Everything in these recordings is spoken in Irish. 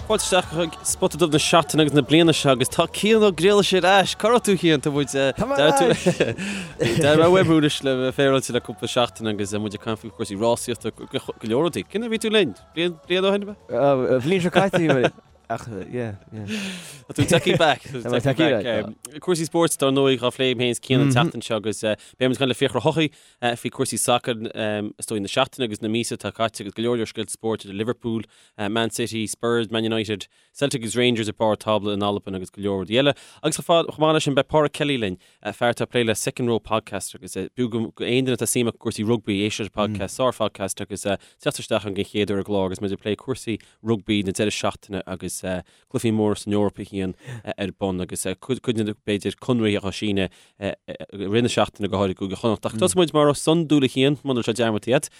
Fáilte isteach chuig Spota Dubh na seachtaine agus na bliana seo agus tá Cian Ó Griallais ar ais. Cá raibh tú Cian? Tá muid Tá mé ar ais! Dar raibh uaim anois le bheith féaráilte le cúpla seachtain agus muid ag caint faoi chúrsaí rásaíochta go leor rudaí. Cén uair a bhí tú linn? Bliain bliain ó shin ab ea? Bhliain seo caite bhí mé ach yeah, yeah. Tá tú techie back. Tá mé techie back. Cúrsaí spóirt dar ndóigh á phlé mé féin is Cian an tseachtain seo agus beidh muid ag caint le Fiachra Ó hEochaidh faoi chúrsaí sacair is dóigh na seachtaine agus na míosa atá caite agus go leor leor scéalta spóirt idir Liverpool, Man City, Spurs, Man United, Celtic agus Rangers ag barr tábla in Albain agus go leor rudaí eile. Agus chomh maith leis sin beidh Pádraig Kelly linn, fear atá ag plé le Second Row Podcast agus b'fhiú go aon duine atá suim acu i gcúrsaí rugbaí éisteacht leis an podcast, sár phodcast agus teacht isteach an chéad uair ar an gclár agus muid ag plé cúrsaí rugbaí na deireadh seachtaine agus cluichí móra san Eoraip a bhíonn ar bun agus cuid de na, b'fhéidir, conarthaí atá sínithe i rith na seachtaine go háirithe i gCúige Chonnacht. Ach tosóidh muid mar is iondúil a Chian, muna bhfuil sé dearmadta agat,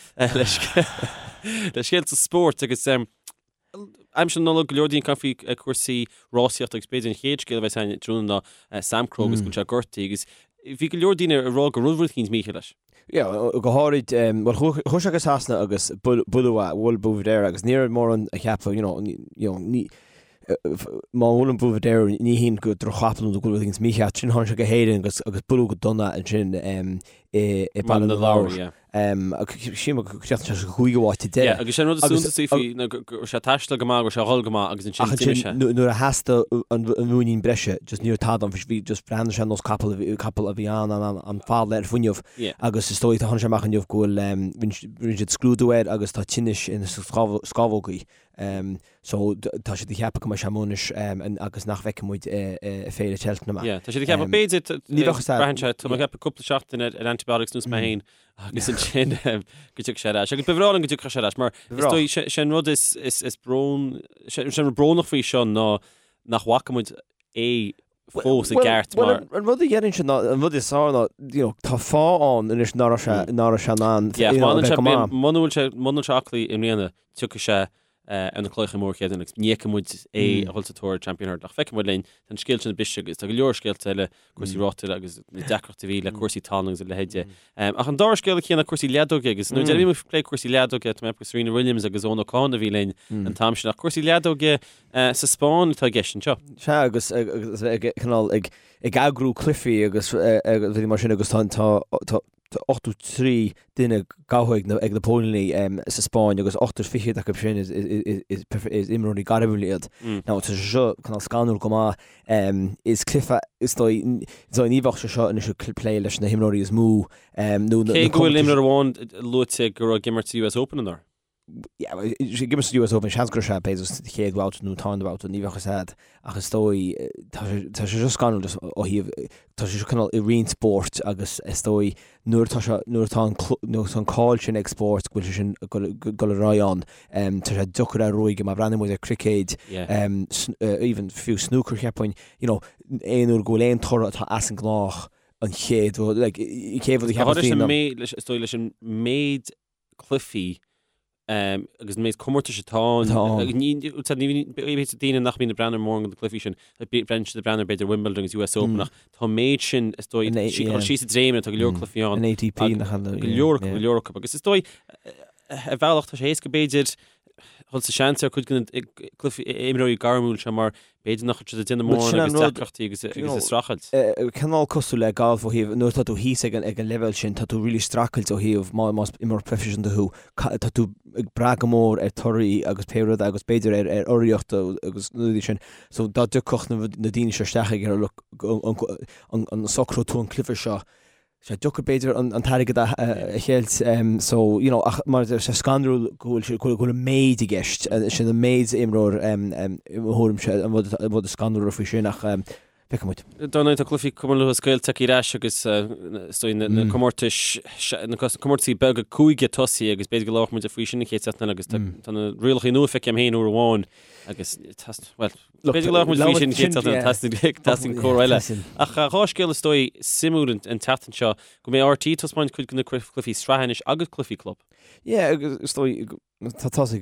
le scéalta spóirt agus aimsir na Nollag, go leor daoine ag caint faoi cúrsaí rásaíochta agus b'fhéidir an chéad scéal a bheas againn tráthnóna ná Samcro agus go bhfuil sé gortaithe agus bhí go leor daoine ag rá go raibh rud eicínt mícheart leis. Yeah, go háirid, bhuel, chuaigh sé go Sasana agus buaileadh é, bhuail Buveur d'Air agus ní raibh mórán a cheapadh, you know, you know, ní, má bhuaileann Buveur d'Air ní híonn go droch-chapall nó go bhfuil rud éigin mícheart, ansin tháinig sé go hÉirinn agus, agus buaileadh go dona ansin i, i Baile na Lobhar. Yeah. Sílim gur chríochnaigh sé sa chúigiú háit sa deireadh. Yeah, agus sé an rud is suntasaí faoi ná go raibh sé ag taisteal go maith, go raibh sé ag dhul go maith agus ansin d'imigh sé. Ach ansin nuair a theastaigh an ruainnín breise, just ní raibh tada ann, bhí just bhreathnaigh sé ar nós capall capall a bhí an-an-an-fhada ar fuinneamh agus is dóigh tháinig sé amach inniu go bhfuil rinne siad scrúdú air agus tá tinneas ina scamhógaí. So tá siad ag ceapadh go mbeidh sé amuigh anois agus nach bhfeicfidh muid i Féile Cheltenham é. Yeah, tá siad ag ceapadh b'fhéidir ní bheadh fhios braitheann sé, tá mé ag ceapadh cúpla seachtain ar ar antibiotics nós mé féin agus ansin go dtiocfaidh sé ar ais. Agus ba bhreá linn go dtiocfadh sé ar ais mar is dóigh sé sé an rud is is is brón sé an rud brónach faoi seo ná nach bhfaca muid é fós i gceart mar. Bhuel, an rud a deireann sé ná, an rud is fearr ná, you know, tá fáth ann anois nach raibh sé, nach raibh sé in ann, you know, a bheith go maith. Muna bhfuil sé, muna bhfuil sé aclaí i mbliana, tiocfaidh sé ar na cluichí móra chéad agus ní fheicfidh muid é a dhul sa tóir ar Champion Hurdle. Ach feicfidh muid linn, tá an scéal sin ag biseach agus tá go leor scéalta eile, cúrsaí rátaí agus na deacrachtaí a bhí le cúrsaí talún agus a leithéide. Ach an dara scéal a Chian ná cúrsaí leadóige agus nuair a bhí muid ag plé cúrsaí leadóige, tá mé ag ceapadh Serena Williams agus Eoin Ó Catháin a bhí linn an t-am sin ach cúrsaí leadóige Sa Spáinn atá i gceist anseo. Sea, agus agus a bheith ag cineál ag ag eagrú cluichí agus rudaí mar sin agus tá tá tá 83 duine gafa ag na ag na póilíní sa Spáinn agus ochtar fichead acu sin is is is is imreoirí gairmiúla iad. Now tá sé seo cineál scanrúil go maith. Is cluiche is dóigh is dóigh ní bheadh sé seo anois ag plé leis na himreoirí is mó nó na Cé go bhfuil imreoir amháin luaite go raibh ag imirt sa US Open anuraidh. Ag imirt sa US Open, seans go raibh sé b'fhéidir sa chéad bhabhta nó an tarna babhta, ní bheadh fhios a'd, ach is dóigh, tá sé, tá sé seo scanrúil just ó thaobh, tá sé seo cineál i roinnt spóirt agus is dóigh nuair atá sé, nuair atá an cl-, nuair atá an cáil sin ag spórt go bhfuil sé sin ag dul, ag dul ar aghaidh ann, tá sé deacair é a ruaigeadh, má bhreathnaíonn muid ar cruicéid, even fiú snooker cheapfainn, you know, aon uair go bhfuil aon toradh atá as an ngnách an chéad rud, like, an chéad rud a cheapann daoine ná. Is dóigh leis an méid cluichí agus an méid comórtais atá ann. Atá ann. Ní bhíonn daoine nach mbíonn ag breathnú mórán do na cluichí sin, breathnaíonn siad ag breathnú b'fhéidir Wimbledon agus US Open ach tá an méid sin is dóigh síos an dréimire tá go leor cluichí ann. An ATP nach ann. Go leor acu, go leor acu. Agus is dóigh ar bhealach tá sé éasca b'fhéidir dhul sa seans ar chuid de na cluichí imreoirí gairmiúil seo mar B'fhéidir nach bhfuil siad ag déanamh mórán agus deacrachtaí agus ag streachailt. Cineál cosúil le galf ó thaobh, nuair atá tú thíos ag an leibhéal sin, tá tú really streachailt ó thaobh, más imreoir proifisiúnta thú, tá tú ag brath go mór ar torthaí agus pé rud é agus b'fhéidir ar urraíocht agus na rudaí sin. So dá dtiocfadh na daoine seo isteach ag iarraidh look an socróidh tú an cluiche seo, sé deacair b'fhéidir an t-airgead a cheilt so you know ach mar tá sé scanrúil go bhfuil sé go bhfuil an méid i gceist sin an méid imreoir i mo thuairimse an rud an rud is scanrúla faoi sin ach feicfidh muid. Dar ndóigh tá cluichí Cumann Lúthchleas Gael tagtha ar ais agus is dóigh na comórtais na comórtaisí beaga cúige tosaithe agus b'fhéidir go labharfaidh muid faoi sin an chéad seachtain eile agus tá na rialacha nua feicthe agam féin uair amháin agus bhuel B'fhéidir go labharfaidh muid faoi sin an chéad seachtain, teastaíonn comhrá eile. Ach dhá scéal is dóigh suimiúil an tseachtain seo, go mbeidh RTÉ ag taispeáint cuid de na cluichí sraithe anois agus cluichí club. Yeah, agus is dóigh. Tá a fhios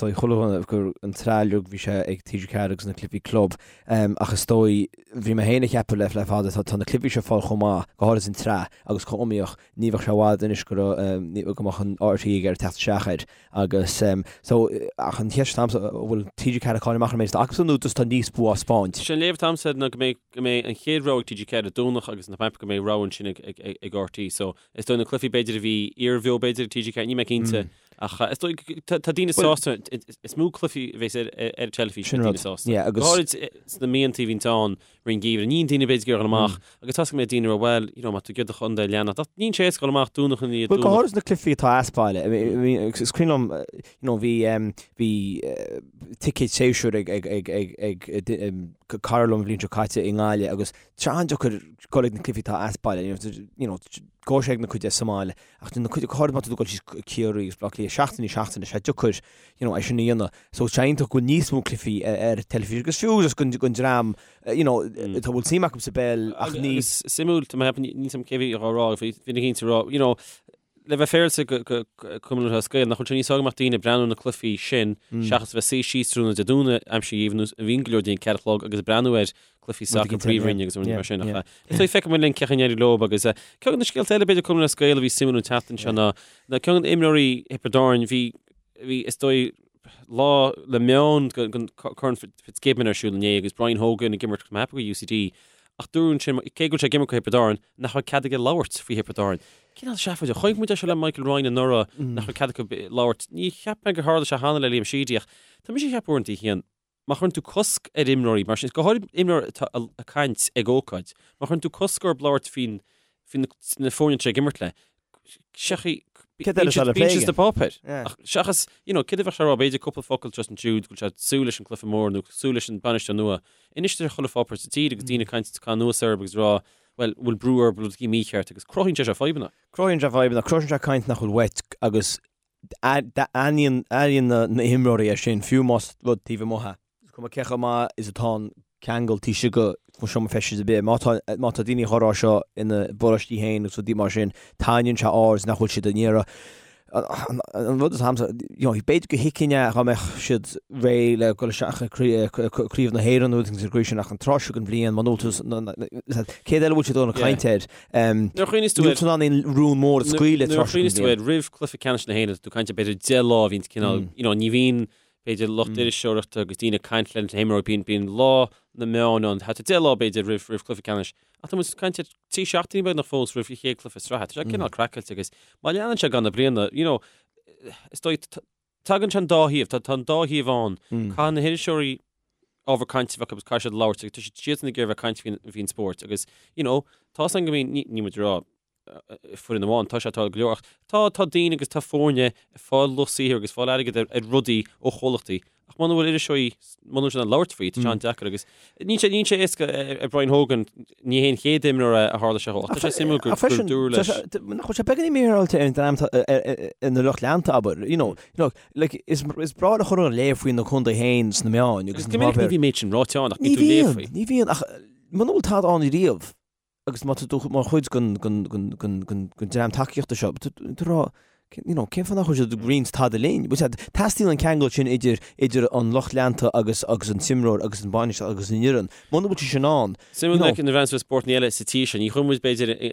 ag chuile dhuine gur an tsraith uilig bhí sé ag TG4 agus na cluichí club ach is dóigh, bhí mé féin ag ceapadh le le fada, tá na cluichí seo ag fáil chomh maith, go háirid an tsraith, agus chomh iomaíoch, ní bheadh sé i bhfad anois go raibh, go mbeadh an RTÉ ag iarraidh teacht isteach air agus so, ach an cheist atá agamsa, an bhfuil TG4 ag cailleadh amach ar an méid atá acusan nó just tá níos mó á 'speáint? Sé an léamh atá agamsa ná go mbeidh, go mbeidh an chéad rogha ag TG4 Dé Domhnach agus tá mé ag ceapadh go mbeidh rogha ansin ag, ag, ag RTÉ so is dóigh na cluichí b'fhéidir a bhí iarbheo b'fhéidir ag TG4, níl mé cinnte. Ach is dóigh, tá daoine sásta, is mó cluichí a bheas ar an teilifís, Sin daoine rud. sásta. Yeah, Go agus. háirid sna míonta a bhíonn ann roimh an gheimhreadh, níonn daoine b'fhéidir ag iarraidh dul amach agus tá a fhios go mbeidh daoine ag rá well, you know, má tá tú ag iarraidh do chontae a leanacht, ach níl sé éasca dul amach Domhnach i ndiaidh Bhuel, go Domhnach. háirid sna cluichí atá as baile. I mean, I mean, is cuimhin liom, you know, bhí, bhí ticéid séasúir ag, ag, ag, ag, ag, ag cara liom an bhliain seo caite i nGaillimh agus tá sé an-deacair dul ag na cluichí atá as baile, you know, you know, gabhfaidh sé ag na cuid sa mbaile. Ach na cuid, go háirid má tá tú ag dul síos go Ciarraí agus Baile Átha Cliath, seachtain i ndiaidh seachtaine, sé deacair, you know, é sin a dhéanamh. So tá sé iontach go bhfuil níos mó cluichí ar an teilifís agus fiú just don, don dream, you know, atá bhfuil suim acu sa bpeil ach ní. Agus suimiúil, tá mé ag ceapadh, níl a fhios agam cé bhí á rá, bhí duine éicint ag rá, you know, le bheith féaráilte go, go, go Cumann Lúthchleas Gael, nach bhfuil sé níos fearr go mbeadh daoine ag breathnú ar na cluichí sin seachas a bheith suí síos tráthnóna Dé Domhnaigh aimsir an gheimhridh nuair a bhíonn go leor daoine ag ceathair a chlog agus ag breathnú ar cluichí sacair príomhroinne agus rudaí mar sin. Ach is dóigh feicfidh muid linn cén chaoi a n-éireoidh leo agus ceann de na scéalta eile b'fhéidir Cumann Lúthchleas Gael a bhí suimiúil an tseachtain seo ná na ceann de na imreoirí Thiobraid Árann bhí bhí is dóigh lá na meán den Corn Fitzgibbon ar siúl inné agus Brian Hogan ag imirt mé ag ceapadh do UCD ach dúradh ansin cé go bhfuil sé ag imirt do Thiobraid Árann nach raibh cead aige labhairt faoi Thiobraid Árann. Cineál seafóideach. Chonaic muid é seo le Michael Ryan anuraidh nach raibh cead acu labhairt. Ní cheap mé gur tharla sé cheana le Liam Sheedy ach tá mise ag ceapadh uaireanta féin Má chuireann tú cosc ar imreoirí, mar sin, go háirid imreoir atá ag caint ag ócáid, má chuireann tú cosc orthu labhairt faoin, faoi na foirne atá ag imirt le, seachas, Céard eile atá le plé bíonn siad aige? sna páipéir. Yeah. Ach seachas, you know, céard a bheadh sé a rá, b'fhéidir cúpla focal anseo is ansiúd, go bhfuil sé ag súil leis an cluiche mór nó súil leis an bainisteoir nua. Anois tá sé ar chuile pháipéar sa tír agus daoine ag caint ag caitheamh anuas orthu agus ag rá, bhuel, bhfuil brú orthu, rudaí mícheart agus cruthaíonn sé seo fadhbanna. Cruthaíonn sé fadhbanna, cruthaíonn sé caint nach bhfuil uait agus Airíonn na himreoirí é sin, fiú más rud taobh amuigh é. Is cuma cé chomh maith is atá an ceangal taobh istigh de sheomra feistis ar bith, má tá má tá daoine á rá seo ina bparóistí féin agus rudaí mar sin, tarraingíonn sé aird nach bhfuil siad ag iarraidh an rud atá agamsa, you know, b'fhéidir go dtuigfinn é dá mbeadh siad réidh le dul isteach i Craobh na hÉireann nó rud éigin sa gcaoi sin ach an tráth seo den bhliain, muna bhfuil tú, céard eile a bhfuil siad ag caint air? Nuair a chuimhníos tú Níl tú in ann aon rún mór a scaoileadh Nuair a chuimhníos tú air roimh cluiche ceannais na hÉireann, tú ag caint ar b'fhéidir 10 lá a bhíonn cineál, you know, ní bhíonn b'fhéidir lucht iriseoireachta agus daoine ag caint leis na himreoirí, bíonn, bíonn lá na meán ann, thart ar 10 lá b'fhéidir roimh, roimh cluiche ceannais. Ach tá muid ag caint ar 3 seachtainí beagnach fós roimh an chéad cluiche sraithe. Tá sé cineál craiceáilte agus má leanann sé i gcaitheamh na bliana, you know, is dóigh, Tagann sé an dá thaobh, tá an dá thaobh ann. Caithfidh na hiriseoirí ábhar cainte a bheith acu agus caithfidh siad labhairt agus tá siad siadsan ag iarraidh bheith ag caint faoin faoin spórt agus you know tá 's agam go mbíonn, ní ní muid ag rá foireann amháin, tá sé tá go leor ach tá tá daoine agus tá foirne ag fáil lucht saothair agus fáil airgead ar ar rudaí ó chomhlachtaí ach muna bhfuil iriseoirí muna bhfuil siad in ann labhairt faoi tá sé an-deacair agus níl sé níl sé éasca ar Brian Hogan ní hé an chéad imreoir a tharla sé dhó ach tá sé suimiúil gur gur dúradh leis. Nach bhfuil sé beagáinín mífhéaráilte ar an dream ar na lucht leanta abair, you know, you know, like, is is breá le chuile dhuine léamh faoi na contae féin sna meáin agus sna páipéir. Go minic ní bhíonn méid sin ráite ann ach bíonn tú ag léamh faoi. Ní bhíonn, ní bhíonn ach muna bhfuil tada ann riamh agus má tá tú mar chuid den den den den den den dream tacaíochta seo, tú ag rá, you know, cén fáth nach bhfuil siad ag roinnt tada linn? Bhuel, sea, teastaíonn an ceangal sin idir idir an lucht leanta agus agus an t-imreoir agus an bainisteoir agus an fhoireann. Muna bhfuil sé sin ann, you Suimiúil know. nuair a bhreathnaíonn tú ar spórtanna eile sa tír seo, ní chuireann muid b'fhéidir i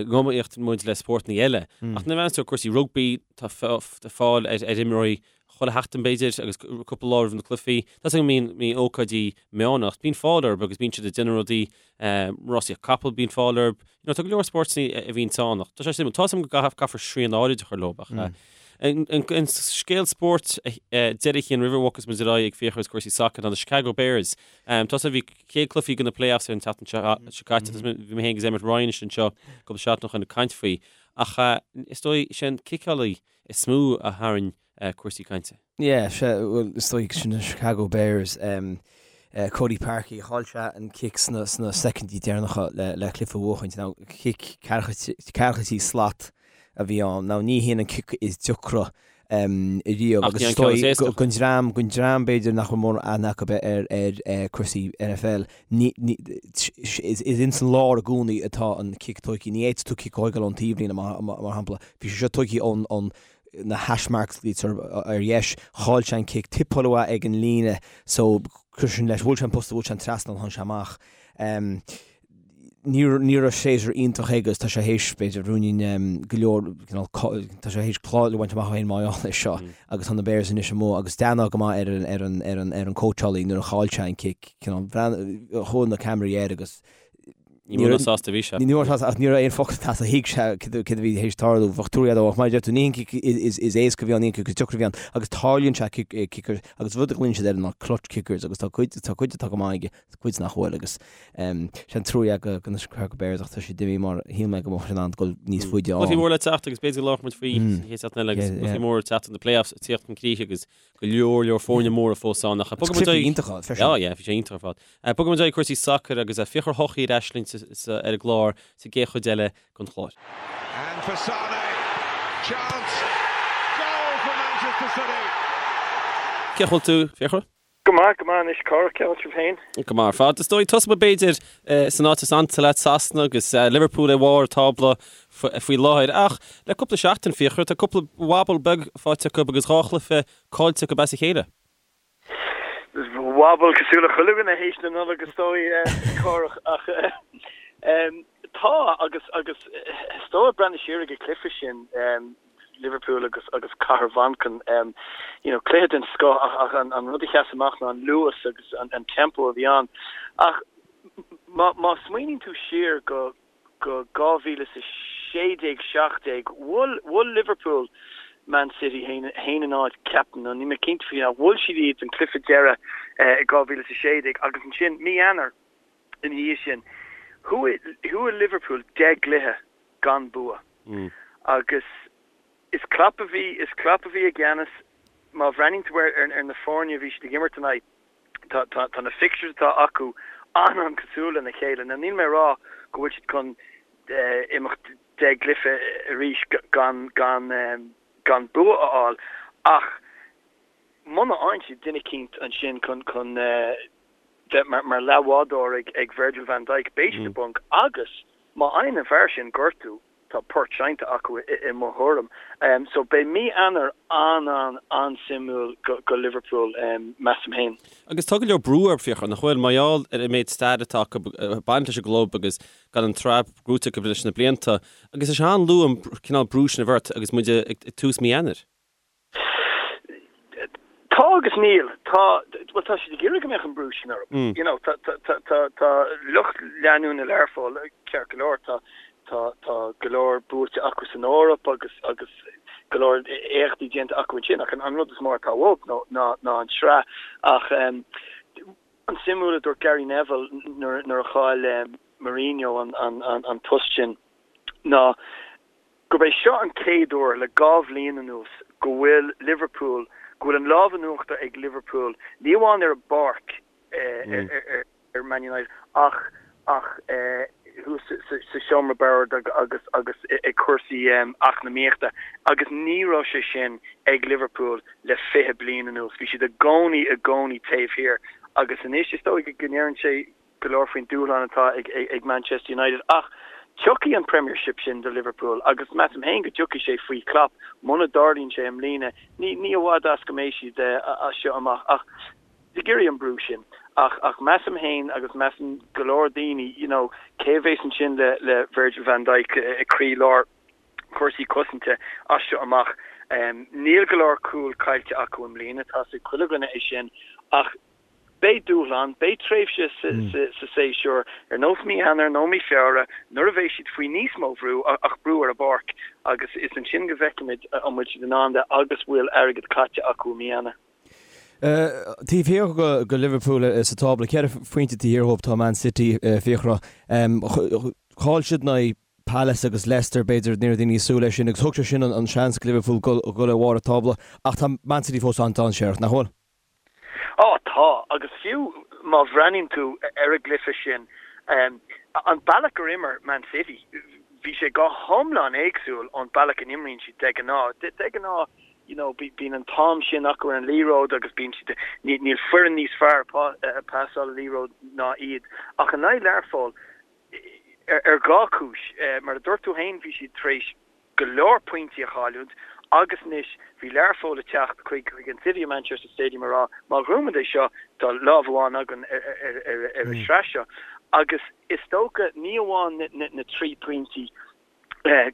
giomaíocht muid le spórtanna eile, ach nuair a bhreathnaíonn tú ar cúrsaí rugbaí, tá fáil ar ar imreoirí chuile sheachtain b'fhéidir agus cúpla lá roimh na cluichí. Tá 's agam go mbíonn ócáidí meán ach bíonn fáil orthu agus bíonn siad ag déanamh rudaí, rásaíocht capall bíonn fáil orthu. You know, tá go leor spórtanna a bhíonn ann ach tá sé suimiúil. Tá 's agam go gcaithfear srian áirid a chur leo ach an scéal spóirt deiridh roimh a bhogfas muid ar aghaidh ag Fiachra agus cúrsaí sacair ná na Chicago Bears. Tá 's agam bhí chéad cluichí de na playoffs ar an tseachtain seo caite. Bhí mé féin agus Emmet Ryan anseo cúpla seachtain ó shin ag caint faoi ach is dóigh sé an ciceálaí is mó a tharraing cúrsaí cainte. Yeah, sea, bhuel, is dóigh sin na Chicago Bears, Cody Parkey, chaill sé an cic sna sna soicindí deireanacha le le cluiche a bhuachaint. Now, cic ceathracha trí slat a bhí ann. Now, ní hin an cic is deacra riamh Ach agus ní is an ceann is dóigh éasca. don dream, don dream b'fhéidir nach bhfuil mórán aithne acu ar ar cúrsaí NFL, ní, ní, is is ins an lár i gcónaí atá an cic tógtha. Ní fhéadfaidh tú cic a thógáil ón taobhlíne mar mar shampla. Bhí sé seo tógtha ón ón. na hash marks ar dheis, chaill sé an cic, tippáil uaidh ag an líne so chuir sin leis, bhuail sé an posta, bhuail sé an trasnán, tháinig sé amach. Ní ní raibh séasúr iontach aige agus tá sé théis, b'fhéidir, ruainnín go leor, cineál, tá sé théis cáil a bhaint amach ó shin mar gheall air seo agus tá na Bears anois amuigh agus d'aithneofá go maith ar an, ar an, ar an, ar an cóitseálaí nuair a chaill sé an cic, cineál, chuaigh na ceamaraí air agus Ní raibh sásta a bhí sé. Ní raibh sásta ach ní raibh aon focal ag teastáil, thuig sé cad a bhí théis tarlú. Bheadh trua aige dó ach mar a deir tú, ní hin cic is éasca a bhí ann, ní hin cic is deacra a bhí ann agus tarlaíonn sé kickers agus rud a ghlaonn siad air ná clutch kickers agus tá cuid, tá cuid atá go maith aige, cuid nach bhfuil agus sé an trua é go go Bears ach tá siad imithe mar shíl mé go mbeadh siad in ann dul níos faide ann. Cluichí mór le teacht agus b'fhéidir go labhróidh muid faoi sa chéad seachtain eile agus cluichí mór le teacht na playoffs ag tíocht chun críche agus go leor leor foirne móra fós ann ach bogfaidh muid iontach ann freisin. Yeah, yeah, bhí sé iontach ar fad. Bogfaidh muid ar cúrsaí sacair agus Fiachra Ó hEochaidh ar ais linn ar an gclár sa gcéad chuid eile den chlár. And for Sane, chance, goal for Manchester City. Cén chaoi a bhfuil tú, Fiachra? Go maith, go maith anois, Cárthach, cén chaoi a bhfuil sibh féin? Go maith ar fad. Is dóigh, tosóidh muid b'fhéidir san áit is ansa leat, Sasana, agus Liverpool ar bharr tábla faoi láthair. Ach le cúpla seachtain, Fiachra, tá cúpla wobble beag faighte acu agus 2 chluiche caillte acu as a chéile. Wobble cosúil le chuile dhuine théis na Nollag, is dóigh, Cárthach. Ach tá, agus agus is dóigh, breathnú siar ag an cluiche sin, Liverpool agus agus Cathair Mhanchain, you know, cluiche den scoth ach ach an an rud a sheas amach ná an luas agus an an tempo a bhí ann. Ach má má smaoiníonn tú siar go go 2016, 17, bhuail bhuail Liverpool Man City 1 1-0 ceapaim, nó níl mé cinnte faoi ach bhuail siad iad an cluiche deireadh i 2016 agus ansin mí Eanáir ina dhiaidh sin chuaigh chuaigh Liverpool 10 gcluiche gan bua. Agus is Klopp a bhí, is Klopp a bhí i gceannas. Má bhreathnaíonn tú ar, ar na foirne a bhí siad ag imirt in aghaidh, tá, tá, tá na fixtures atá acu an-an-cosúil lena chéile. Now níl mé ag rá go bhfuil siad chun imeacht 10 gcluiche arís gan, gan, gan bua a fháil ach muna fhaigheann siad duine eicínt ansin chun, chun bheith mar, mar leathbhádóir ag, ag Virgil van Dijk, beidh siad i bponc agus Má fhaigheann an fear sin gortú, tá port seinnte acu i mo thuairim. So beidh mí Eanáir an-an an-suimiúil go Liverpool, measaim féin. Agus tá go leor brú orthu, Fiachra, nach bhfuil, mar gheall ar an méid stair atá acu ag baint leis an gclub agus gan an tsraith gnóthaithe acu leis na blianta. Agus is an-luath an cineál brú sin a bheith ort agus muid ag tús mí Eanáir. Tá agus níl. Tá, bhuel tá siad ag iarraidh go mbeadh an brú sin orthu. You know, tá, tá, tá, tá, tá lucht leanúna Learpholl, ceart go leor, tá, tá, tá go leor buaite acu san Eoraip agus, agus go leor éachtaí déanta acu ansin ach an, an rud is mó atá uathu ná, ná, ná an tsraith. Ach um, an-suimiúil a dúirt Gary Neville nuair, nuair a chaill um, Mourinho an, an, an, an post sin ná gurb é seo an chéad uair le 2 bhliain anuas go bhfuil Liverpool, go bhfuil an lámh in uachtar ag Liverpool, ní amháin ar an bpáirc ar Man United ach ach thuas sa seomra boird agus agus ag cúrsaí eacnamaíochta agus ní raibh sé sin ag Liverpool le 20 bliain anuas. Bhí siad i gcónaí i gcónaí taobh thiar agus anois is dóigh go ndeireann sé go leor faoin dúshlán atá ag Manchester United ach tiocfaidh an Premiership sin do Liverpool agus measaim féin go dtiocfaidh sé faoi Klopp muna dtarlaíonn sé i mbliana. Ní ní i bhfad as go mbeidh siad as seo amach ach ag iarraidh an brú sin. Ach ach measaim féin agus measann go leor daoine you know cé a bheas ansin le le Virgil van Dijk i croí-lár cúrsaí cosanta as seo amach. Níl go leor cúl caillte acu i mbliana, tá's ag chuile dhuine é sin ach Beidh dúshlán, beidh tréimhse sa séasúr, ar nós mí Eanáir nó mí Feabhra, nuair a bheidh siad faoi níos mó bhrú, ach brú ar an bpáirc, agus is ansin go bhfeicfimid an bhfuil siad in ann de agus bhfuil airgead caite acu i mí Eanáir. Taobh thiar de Liverpool sa tábla, 4 phointe taobh thiar dhóibh tá Man City, Fiachra. Chaill siad in aghaidh Palace agus Leicester, b'fhéidir, ní raibh daoine ag súil leis sin agus thug sé sin an seans do Liverpool dul ar bharr an tábla ach tá Man City fós an-dainséarach, nach bhfuil? Á, tá, agus fiú má bhreathnaíonn tú ar an gcluiche sin, an bealach gur imir Man City, bhí sé go hiomlán éagsúil ón bealach a n-imríonn siad de ghnáth. De ghnáth, you know, bíonn an t-am sin acu ar an liathróid agus bíonn siad, níl foireann níos fearr ag pasáil an liathróid ná iad. Ach in aghaidh Learpholl, ar dhá chúis, mar a dúirt tú féin, bhí siad tar éis go leor pointí a chailliúint. Agus anois bhí Learpholl ag teacht chuig chuig an City of Manchester Stadium ag rá má ghnóthaímid é seo tá lámh amháin againn ar an sraith seo. Agus is dócha ní amháin na 3 pointí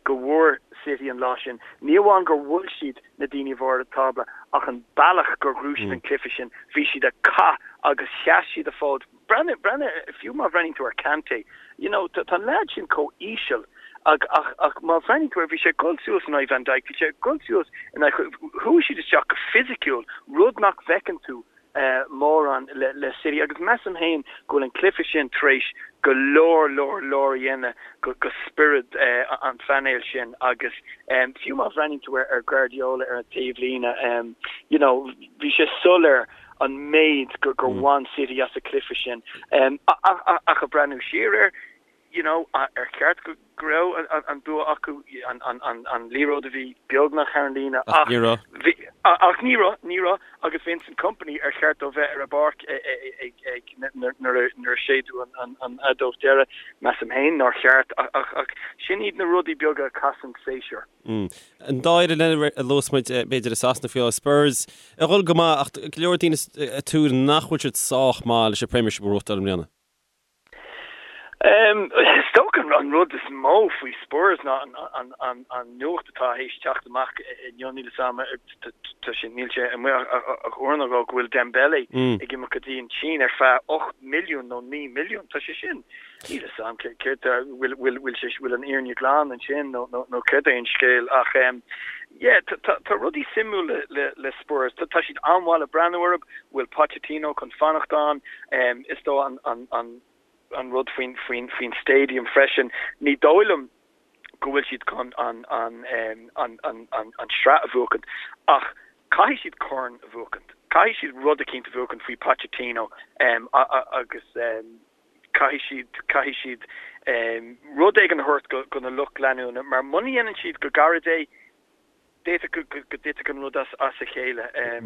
go bhfuair City an lá sin, ní amháin gur bhuail siad na daoine ar bharr an tábla ach an bealach gur ghnóthaigh siad an cluiche sin, bhí siad ag cath agus sheas siad a bhfód. Breathnaigh, breathnaigh, fiú má bhreathnaíonn tú ar Kante, you know, tá an leaid sin chomh íseal ach, ach, ach má bhreathnaíonn tú air, bhí sé ag dul suas in aghaidh Van Dijk, bhí sé ag dul suas in aghaidh, chuaigh siad isteach go fisiciúil, rud nach bhfeiceann tú mórán le City agus measaim féin go bhfuil an cluiche sin tar éis go leor, leor, leor a dhéanamh go spiorad an phainéil sin agus fiú má bhreathnaíonn tú ar Guardiola ar an taobhlíne, you know, bhí sé soiléir an méid gur bhain City as an cluiche sin. Ach ag breathnú siar air, you know, ar cheart go raibh an bua acu, an liathróid a bhí beagnach thar an líne ach ní raibh. Ach ní raibh, ní raibh agus Vincent Kompany ar cheart dó bheith ar an bpáirc ag nuair a séideadh an fheadóg deiridh, measaim féin nár cheart ach sin iad na rudaí beaga a chasann séasúr. An dá fhoireann eile a luas muid b'fhéidir i Sasana faoi láthair, Spurs ag dul go maith ach go leor daoine ag tuar nach bhfuil siad sách maith leis an Premiership a bhuachtáil i mbliana. Is dócha an rud is mó faoi Spurs ná an nuacht atá théis teacht amach inniu, níl 'fhios a'm, tá sé, níl sé amuigh ach uair nó dhó, go bhfuil Dembele ag imeacht go dtí an tSín ar feadh 8 milliún nó 9 milliún. Tá sé sin, níl 'fhios a'm céard tá, bhfuil, bhfuil, bhfuil sé, bhfuil an fhírinne glan ansin nó, nó, nó céard é an scéal ach yeah, tá, tá, tá rudaí suimiúla le, le Spurs. Tá, tá siad an-mhaith le breathnú orthu, bhfuil Pochettino chun fanacht ann, Is dóigh an rud faoin stadium freisin, ní dóigh liom go bhfuil siad chun an tsraith a bhuachaint ach caithfidh siad corn a bhuachaint. Caithfidh siad rud eicínt a bhuachaint faoi Pochettino agus caithfidh siad, caithfidh siad rud éigin a thabhairt do na lucht leanúna mar muna dhéanann siad go gairid é, D'fhéadfadh go dtitfeadh an rud as a chéile.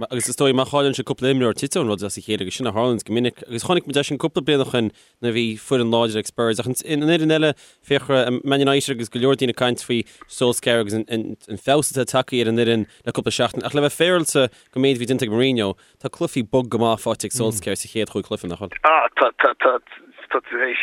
Agus is dóigh, má chailleann siad cúpla imreoir, titeann an rud as a chéile agus sin a tharlaíonns go minic. Agus chonaic muid é sin cúpla bliain ó shin nuair a bhí foireann láidir ag Spurs. Ach an fhoireann eile, féach ar Man United agus go leor daoine ag caint faoi Solskjaer agus an feabhas atá tagtha ar an fhoireann le cúpla seachtain. Ach le bheith féaráilte don méid a bhí déanta ag Mourinho, tá cluichí bog go maith faighte ag Solskjaer sa chéad chúig chluiche, nach bhfuil? Ah, tá, tá, tá, tá tú théis,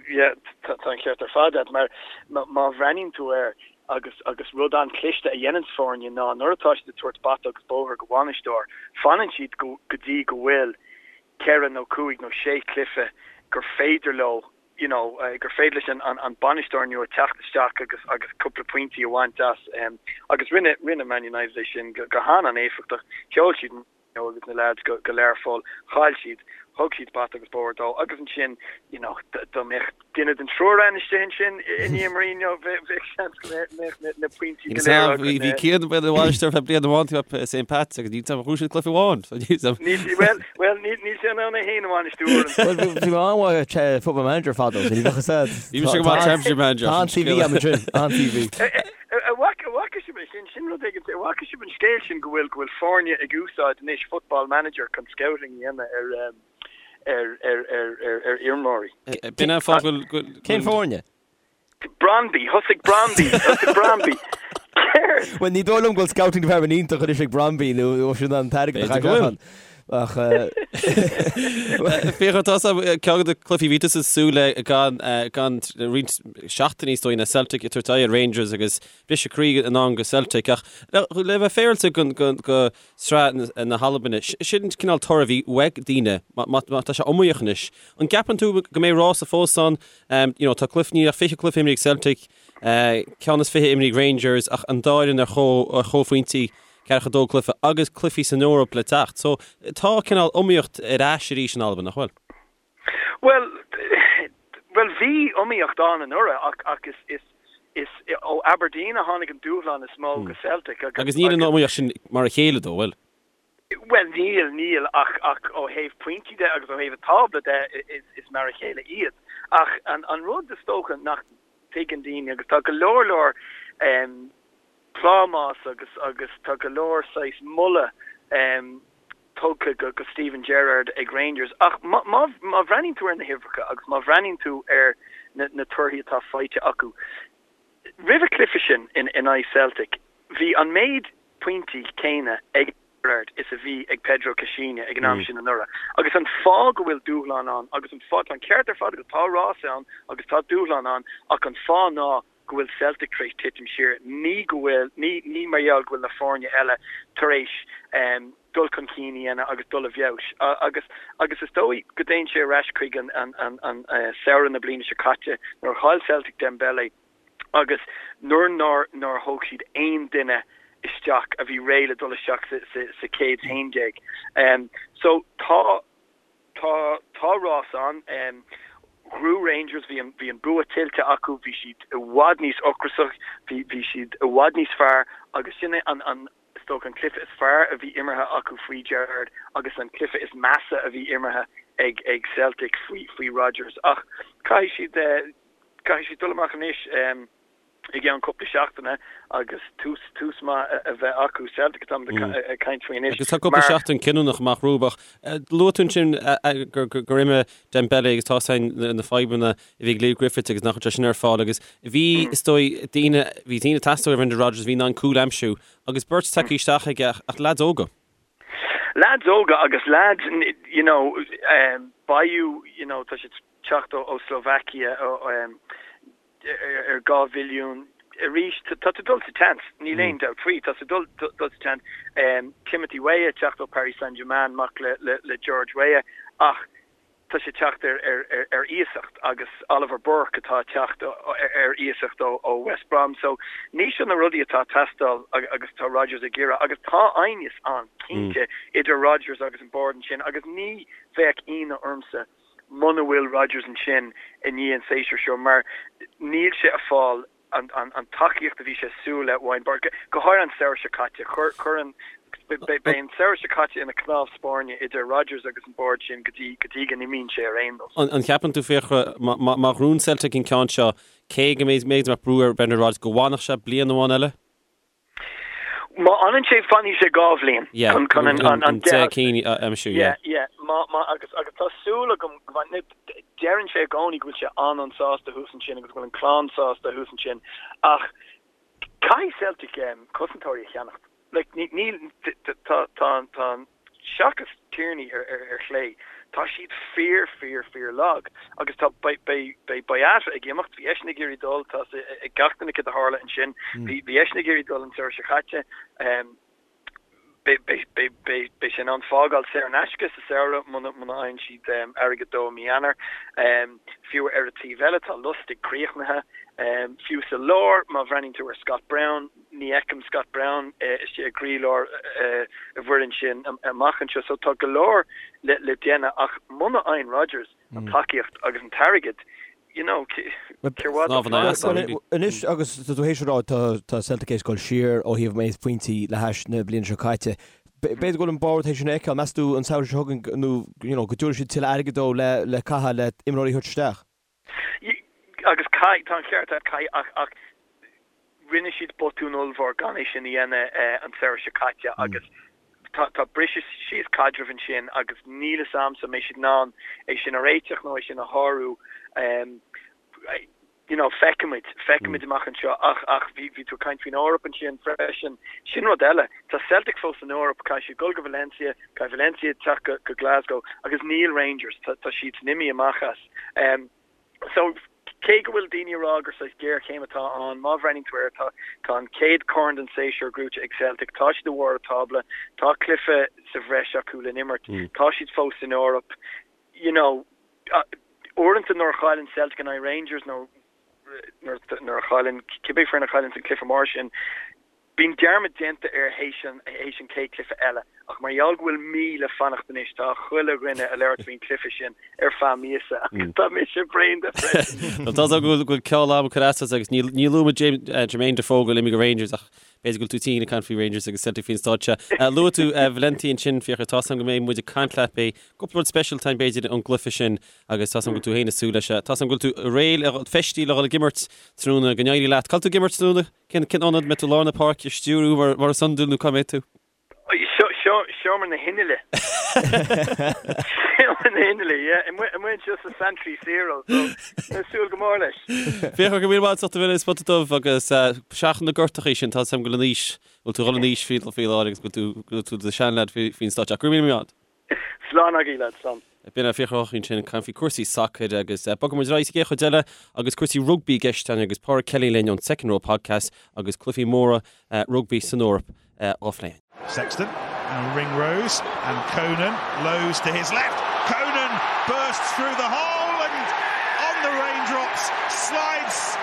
yeah, tá an ceart ar fad agat mar má bhreathnaíonn tú air, Agus agus rud an-chliste a dhéananns foirne ná nuair atá siad ag tabhairt bata agus bóthar go bhainisteoir, fanann siad go go dtí go bhfuil ceithre nó cúig nó sé chluiche gur féidir leo you know gur féidir leis an an bainisteoir nua teacht isteach agus agus cúpla pointí a bhaint as. Agus rinne rinne Man United é sin go go han-an-éifeachtach. Sheol siad agus na leaids go Learpholl, chaill siad, thug siad bata agus bóthar dó agus ansin, you know, dá mbeadh duine den triúr againn istigh ansin i ndiaidh Mourinho, bheadh seans go mbeadh na pointí go léir againn. Bhí Cian ina bhainisteoir ar feadh bliain amháin taobh St Pat's agus níl bhuaigh siad cluiche amháin. Bhuel, well, níl sé in ann é féin a bhainistiú uaireanta. Bhuel, bhí mé an-mhaith ag Football Manager fadó, so ní bheadh a fhios agat. Bhí mise go maith Championship Manager. Tá an CV agam ansin, an CV. An bhfaca sibh é sin? Sin rud éigin. An bhfaca sibh an scéal sin go bhfuil go bhfuil foirne ag úsáid anois Football Manager chun scouting a dhéanamh ar ar ar ar ar ar imreoirí? B'in an fáth go bhfuil Cén foirne? Brøndby. Thosaigh Brøndby. Thosaigh Brøndby. Céard? Bhuel, ní dóigh liom go bhfuil scouting department iontach anois ag Brøndby nó nó sin an t-airgead a chaith sé ann. Ach Fiachra, tá ceann de na cluichí bhí tusa ag súil le gan gan roinnt seachtainí is dóigh na Celtic ag tabhairt aghaidh ar Rangers agus briseadh croí i ndán go Celtic ach le bheith féaráilte go sraith na hAlban sin cineál toradh a bhí uaidh daoine má tá sé iomaíoch anois. An gceapann tú go mbeidh rása fós ann? You know, tá cluiche níl ach 20 cluiche imrithe ag Celtic, ceann is 20 imrithe ag Rangers ach an dá fhoireann ar chomhphointí. 42 cluiche agus cluichí san Eoraip le teacht. So, tá cineál iomaíocht ar ais arís in Albain, nach bhfuil? Bhuel, bhuel bhí iomaíocht ann anuraidh ach, ach is, is, is ó Aberdeen a tháinig an dúshlán is mó go Celtic agus, Agus níl an iomaíocht sin mar a chéile dó, bhfuil? Bhuel níl, níl ach, ach ó thaobh pointí de agus ó thaobh an tábla de is, is mar a chéile iad. Ach an, an rud is dócha nach dtuigeann daoine agus tá go leor leor plámás agus agus tá go leor saghas moladh tugtha go go Steven Gerrard ag Rangers ach má má má bhreathnaíonn tú ar na huimhreacha agus má bhreathnaíonn tú ar na na torthaí atá faighte acu roimh an cluiche sin in in aghaidh Celtic bhí an méid. pointí céanna ag Gerrard is a bhí ag Pedro Caixinha ag an am sin anuraidh. Agus an fáth go bhfuil dúshlán ann, agus an fáth, tá an ceart ar fad agat, tá rás ann agus tá dúshlán ann, ach an fáth ná go bhfuil Celtic tar éis titim siar, ní go bhfuil, ní, ní mar gheall go bhfuil na foirne eile tar éis dul chun cinn a dhéanamh agus dul i bhfeabhas. Agus, agus is dóigh go dtéann sé ar ais chuig an, an, an, an samhradh na bliana seo caite nuair a chaill Celtic Dembele agus nuair nár, nár thóg siad aon duine isteach a bhí réidh le dul isteach sa, sa, sa chéad 11. So tá. Tá, tá rás ann. Ghnóthaigh Rangers, bhí an, bhí an bua tuillte acu, bhí siad i bhfad níos ocrasach, bhí, bhí siad i bhfad níos fearr agus sin é an, an, is dócha an cluiche is fearr a bhí imeartha acu faoi Gerrard agus an cluiche is measa a bhí imeartha ag, ag Celtic faoi, faoi Rodgers. Ach caithfidh siad, caithfidh siad dul amach anois. i gceann cúpla seachtaine agus tús tús maith a bheith acu. Celtic atá muid ag caint faoi anois. Agus tá cúpla seachtain cinniúnach amach romhaibh ach luaigh tú ansin gur imigh Dembele agus tá a fhios againn na fadhbanna a bhí ag Leigh Griffiths agus nach raibh sé sin ar fáil agus bhí is dóigh daoine bhí daoine ag teastáil ó Brendan Rodgers a bhí in ann cúil a aimsiú agus beirt tagtha isteach aige ach leaids óga. Leaids óga agus leaids you know Bayo you know tá sé teacht ó Slovakia ar 2 mhilliún. Arís, tá tú dul sa tseans, níl aon dabht faoi, tá tú dul sa tseans. Timothy Weah ag teacht ó Paris Saint-Germain, mac le George Weah, ach tá sé ag teacht ar iasacht agus Oliver Burke atá ag teacht ar iasacht ó West Brom. So ní seo na rudaí atá ag teastáil agus atá Rodgers ag iarraidh agus tá aighneas ann, cinnte, idir Rodgers agus an bord ansin agus ní bheadh ionadh ormsa muna bhfuil Rodgers ansin i ndiaidh an tséasúir seo mar níl sé ag fáil an tacaíocht a bhí sé ag súil le ón bord, go háirithe an samhradh seo caite. Chuir an, beidh an samhradh seo caite ina cnámh spairne idir Rodgers agus an bord sin go dtí go dtí go n-imíonn sé ar aon nós. An cheapann tú, Fiachra, má ghnóthaíonn Celtic an ceann seo, cé go mbeidh brú ar Brendan Rodgers, go bhfanfadh sé bliain amháin eile? Má fhanann sé, fanfaidh sé 2 bhliain Yeah, chun chun an an an 10 cinn a aimsiú, yeah. Yeah, yeah. Má, má, agus, agus tá súil agam go bhfan, deireann sé i gcónaí go bhfuil sé an-an-sásta thuas ansin agus go bhfuil an clann sásta thuas ansin ach caithfidh Celtic cosantóirí a cheannacht. Like, ní, níl, tá, tá, tá an, Seachas Tierney ar ar chlé, tá siad fíor, fíor, fíor lag. Agus tá, beidh, beidh, beidh Boyata ag imeacht, bhí eisean ag iarraidh dul, tá a fhios ag gach duine céard a tharla ansin, bhí, bhí eisean ag iarraidh dul an samhradh seo caite. Beidh, beidh, beidh, beidh, beidh sé in ann fágáil saor in aisce sa samhradh muna, muna fhaigheann siad airgead dó i mí Eanáir. Fiú ar an taobh eile, tá Lustig críochnaithe. Fiú sa lár, má bhreathnaíonn tú ar Scott Brown, Ní fheicim Scott Brown istigh i gcroílár an bhfoireann sin amach anseo so tá go leor le déanamh ach muna fhaigheann Rodgers an tacaíocht agus an t-airgead, you know, cér mhaith dó fanacht? Anois agus tá tú théis a rá tá Celtic théis dul siar ó thaobh méid pointí le hais na bliana seo caite. B'fhéidir go bhfuil an bord théis sin a fheiceáil, meas tú an samhradh seo chugainn nó you know go dtabharfaidh siad tuilleadh airgid dó le le caitheamh le imreoirí a thabhairt isteach? Agus caithfidh, tá an ceart agat, caithfidh, ach, ach rinne siad botún ollmhór gan é sin a dhéanamh an samhradh seo caite agus tá, tá briseadh síos caidreamh ansin agus níl fhios a'msa an mbeidh siad in ann é sin a réiteach nó é sin a shárú. You know, feicfimid, feicfimid amach anseo ach, ach bhí, bhí tú ag caint faoin Eoraip ansin freisin, sin rud eile. Tá Celtic fós san Eoraip, caithfidh siad dul go Valencia, caithfidh Valencia teacht go, go Glasgow agus níl Rangers, tá, tá siadsan imithe amach as. So, cé go bhfuil daoine ag rá gur saghas géarchéim atá ann, má bhreathnaíonn tú air, tá, tá an chéad chorn den séasúr gnóite ag Celtic, tá siad i bharr an tábla, tá cluiche sa bhreis acu le n-imirt, tá siad fós san Eoraip, you know, uaireanta nuair a chailleann Celtic in aghaidh Rangers nó nuair a chailleann, cibé foireann a chailleann sa cluiche mór sin, Bíonn dearmad déanta air théis an théis an chéad chluiche eile, ach mar gheall go bhfuil mí le fanacht anois, tá chuile dhuine ag labhairt faoin chluiche sin ar feadh míosa, agus tá mise bréan de freisin. Tá a fhios agam go bhfuil ceol am ag cur as duit agus ní ní luaigh muid Jermaine Defoe go bhfuil imithe go Rangers ach b'fhéidir go bhfuil tú tinn ag caint faoi Rangers agus Celtic faoin staid seo. Luaigh tú Valencia ansin, Fiachra, tá a fhios agam go mbeidh muid ag caint leat, beidh cúpla rud speisialta ann b'fhéidir ón gcluiche sin agus tá a fhios agam go bhfuil tú féin ag súil leis. Tá a fhios agam go bhfuil tú réidh le feistí le dhul ag imirt tráthnóna, go n-éirí leat. Cá bhfuil tú ag imirt tráthnóna? Cén ionad? Mbeidh tú i lár na páirce ag stiúrú mar is iondúil nó cá mbeidh tú? Seomra na hInile. Seomra na hInile, yeah. Amuigh anseo sa Santry Zero, so ag súil go mór leis. Fiachra, go raibh míle maith agat as ucht a bheith linn ar Spota Dubh agus seachain na gortachaí sin, tá a fhios agam go bhfuil an aois, bhfuil tú ag dul in aois faoi láthair agus go bhfuil tú i do sheanleaid faoin stáitse ach go raibh míle maith agat. Slán agaibh, lads, slán. B'in é Fiachra Ó hEochagáin ansin ag caint faoi cúrsaí sacair agus bogfaidh muid ar aghaidh sa gcéad chuid eile agus cúrsaí rugbaí i gceist againn agus Pádraig Kelly linn ón Second Row Podcast agus cluichí móra rugbaí san Eoraip á phlé. Sexton and Ringrose and Conan, Lowes to his left, Conan bursts through the hole and on the raindrops slides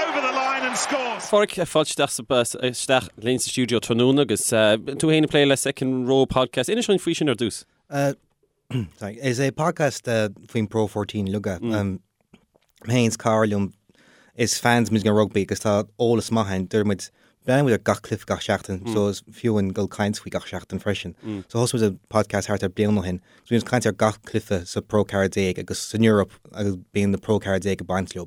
over the line and scores. Pádraig, fáilte isteach linn sa stiúideo tráthnóna agus tú féin ag plé le Second Row Podcast. Inis dúinn faoi sin ar dtús. Sorry. Is é podcast faoin Pro 14 uilig é. Mé féin is cara liom, is fans muid den rugbaí agus tá eolas maith againn. Deir muid, breathnaíonn muid ar gach cluiche gach seachtain so is fiú dúinn dul caint faoi gach seachtain freisin. So thosaigh muid an podcast thart ar bliain ó shin. So bíonn muid caint ar gach cluiche sa Pro 14 agus san Eoraip agus bíonn na Pro 14 ag baint leo.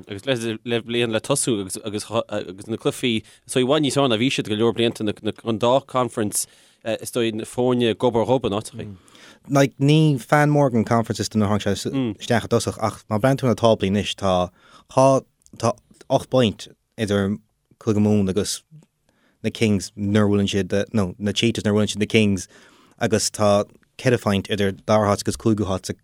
Agus le bliain le tosú agus agus agus na cluichí so i bhfad níos fearr ná bhí siad go leor blianta na an dá conference is dóigh na foirne gob ar ghob in áiteachaí. Like ní fan mór den conference system nuair a tháinig sé isteach i dtosach ach má breathnaíonn tú ar na táblaí anois tá dhá tá 8 bpointe idir Cúige Mumhan agus na Kings nuair a bhuaileann siad nó na Cheetahs nuair a bhuaileann siad na Kings agus tá ceithre phointe idir dara háit agus cúigiú háit sa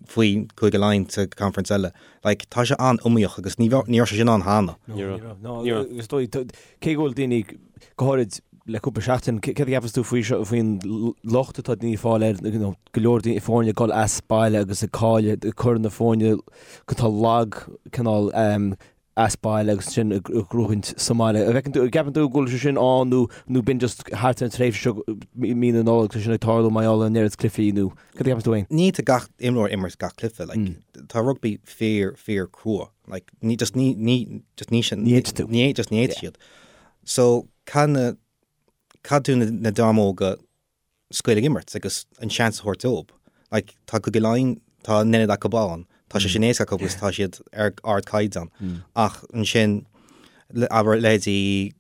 faoi Cúige Laighean sa conference eile. Like, tá sé an-iomaíoch agus ní ní raibh sé sin ann cheana. Ní raibh. Ní raibh. No, Ní raibh. agus dóigh, cé go bhfuil daoine, go háirid le cúpla seachtain, céard a cheapas tú faoi seo, faoin locht atá daoine ag fáil air, you know, go leor daoine, foirne ag dul as baile agus ag cailleadh, ag cur na foirne atá lag cineál as baile agus ansin ag gnóthachaint sa mbaile. An bhfeiceann tú, an gceapann tú go bhfuil sé sin ann nó nó b'in just thart ar an tréimhse seo mí na Nollag tá sin ag tarlú mar gheall ar an oiread cluichí nó cad a cheapann tú féin? Ní fhéadfadh gach imreoir imirt gach cluiche, like tá rugbaí fíor fíor crua, like ní just ní ní just ní sin Ní fhéadfaidh tú. ní just ní fhéadfaidh siad. So caithfidh na caithfidh tú na na dream óga scaoileadh ag imirt agus an seans a thabhairt dóibh. Like, tá Cúige Laighean, tá an oiread acu ann, tá sé sin éasca acu agus tá siad ar ardchaighdeán. Ach ansin, abair leithéidí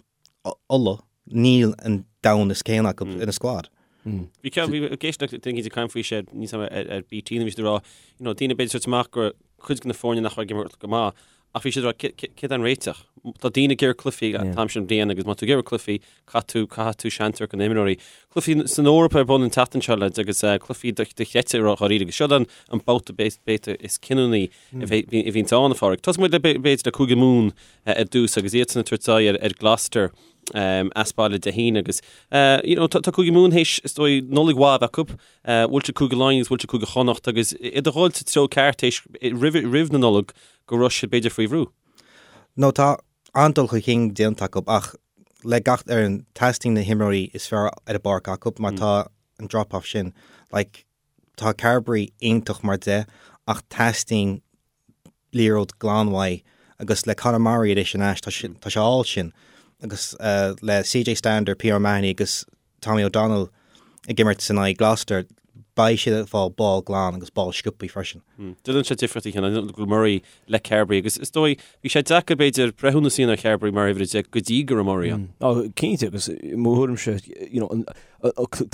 Uladh, níl an domhain céanna acu ina squad. Bhí ceann, bhí ag éisteacht le duine éicint ag caint faoi sé níos am ar BT nó bhí siad ag rá, you know, daoine b'fhéidir ag tabhairt amach go raibh cuid de na foirne nach raibh ag imirt go maith Ach bhí siad ag rá, céard é an réiteach? Tá daoine ag iarraidh cluichí an t-am sin bliana agus má tá tú ag iarraidh cluichí, caithfidh tú, caithfidh tú seans a thabhairt do na himreoirí. Cluichí san Eoraip ar bun an tseachtain seo lads agus cluichí dochreidte dháiríre agus seo an an babhta b'fhéidir is cinniúnaí a bhíonns ann, a Phádraig. Tosóidh muid le b'fhéidir le Cúige Mumhan ar dtús agus iadsan ag tabhairt aghaidh ar Gloucester as baile Dé hAoine agus you know tá Cúige Mumhan théis is dóigh Nollaig mhaith a bheith acu. Bhuail siad Cúige Laighean agus bhuail siad Cúige Chonnacht agus iad ag dul sa treo ceart théis roimh roimh na Nollag go raibh siad b'fhéidir faoi bhrú. No tá an-dul chun cinn déanta acu ach le gach fhoireann teastaíonn na himreoirí is fearr ar an bpáirc acu mar tá an drop off sin. Like tá Carbery iontach mar 10 ach teastaíonn liathróid glan uaidh agus le Conor Murray arís in ais, tá sé tá sé á fháil sin agus le CJ Stander, Peter O'Mahony agus Tommy O'Donnell ag imirt in aghaidh Gloucester, beidh siad ag fáil ball glan agus ball sciobthaí freisin. Déanann sé difríocht a chinneadh go bhfuil Murray le Carbery agus is dóigh bhí sé deacair b'fhéidir breithiúnas a dhéanamh ar Carbery mar uimhir 10 go dtí go raibh Murray ann. Ó cinnte agus i mo thuairimse you know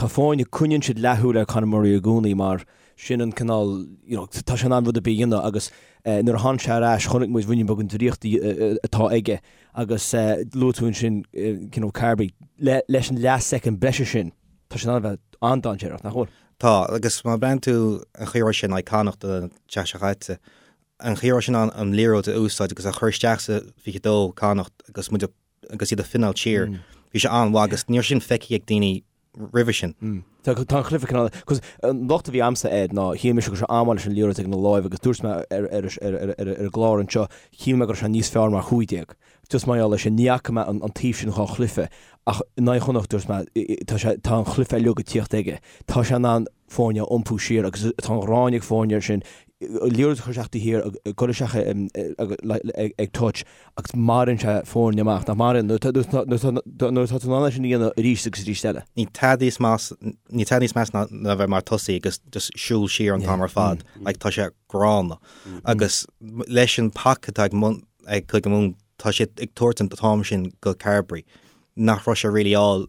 tá foirne coinníonn siad leathshúil ar Conor Murray i gcónaí mar Sin an cineál, you know, tá sé in ann rud ar bith a dhéanamh agus nuair a tháinig sé ar ais chonaic muid ruainnín beag den draíocht atá aige agus luaigh tú ansin you know Carbery, leis an leath soicind breise sin, tá sé in ann a bheith an-dainséarach, nach bhfuil? Tá, agus má bhreathnaíonn tú an chaoi a raibh sé in aghaidh Connacht an tseachtain seo caite, an chaoi a raibh sé in ann an liathróid a úsáid agus a chur isteach sa 22 Connacht agus muid agus iad a choinneáil siar, bhí sé an-mhaith agus ní raibh sin feicthe ag daoine roimhe sin. Tá an cluiche cineál, cos an locht a bhí a'msa air ná shíl mise go raibh sé an-mhaith leis an liathróid ag na láimh agus dúirt mé ar ar ar ar an gclár anseo, shíl mé go raibh sé níos fearr mar 15. Just mar gheall air sin, ní fhaca mé an taobh sin dhá chluiche ach in aghaidh Chonnacht dúirt mé tá sé tá an chluiche uilig ag tíocht aige. Tá sé in ann foirne a iompú siar agus tá an ghráin ag foirne air sin, liathróid a chur isteach taobh thiar, ag dul isteach ag touch agus maraíonn sé foirne amach, nach maraíonn, nuair atá tú in ann é sin a dhéanamh arís agus arís eile. Níl tada níos measa, níl tada níos measa ná bheith mar tosaí agus just siúl siar an t-am ar fad, like tá sé gránna. Agus leis an pack atá ag ag Cúige Mumhan, tá siad ag tabhairt an t-am sin go Carbery, nach raibh sé really á fháil.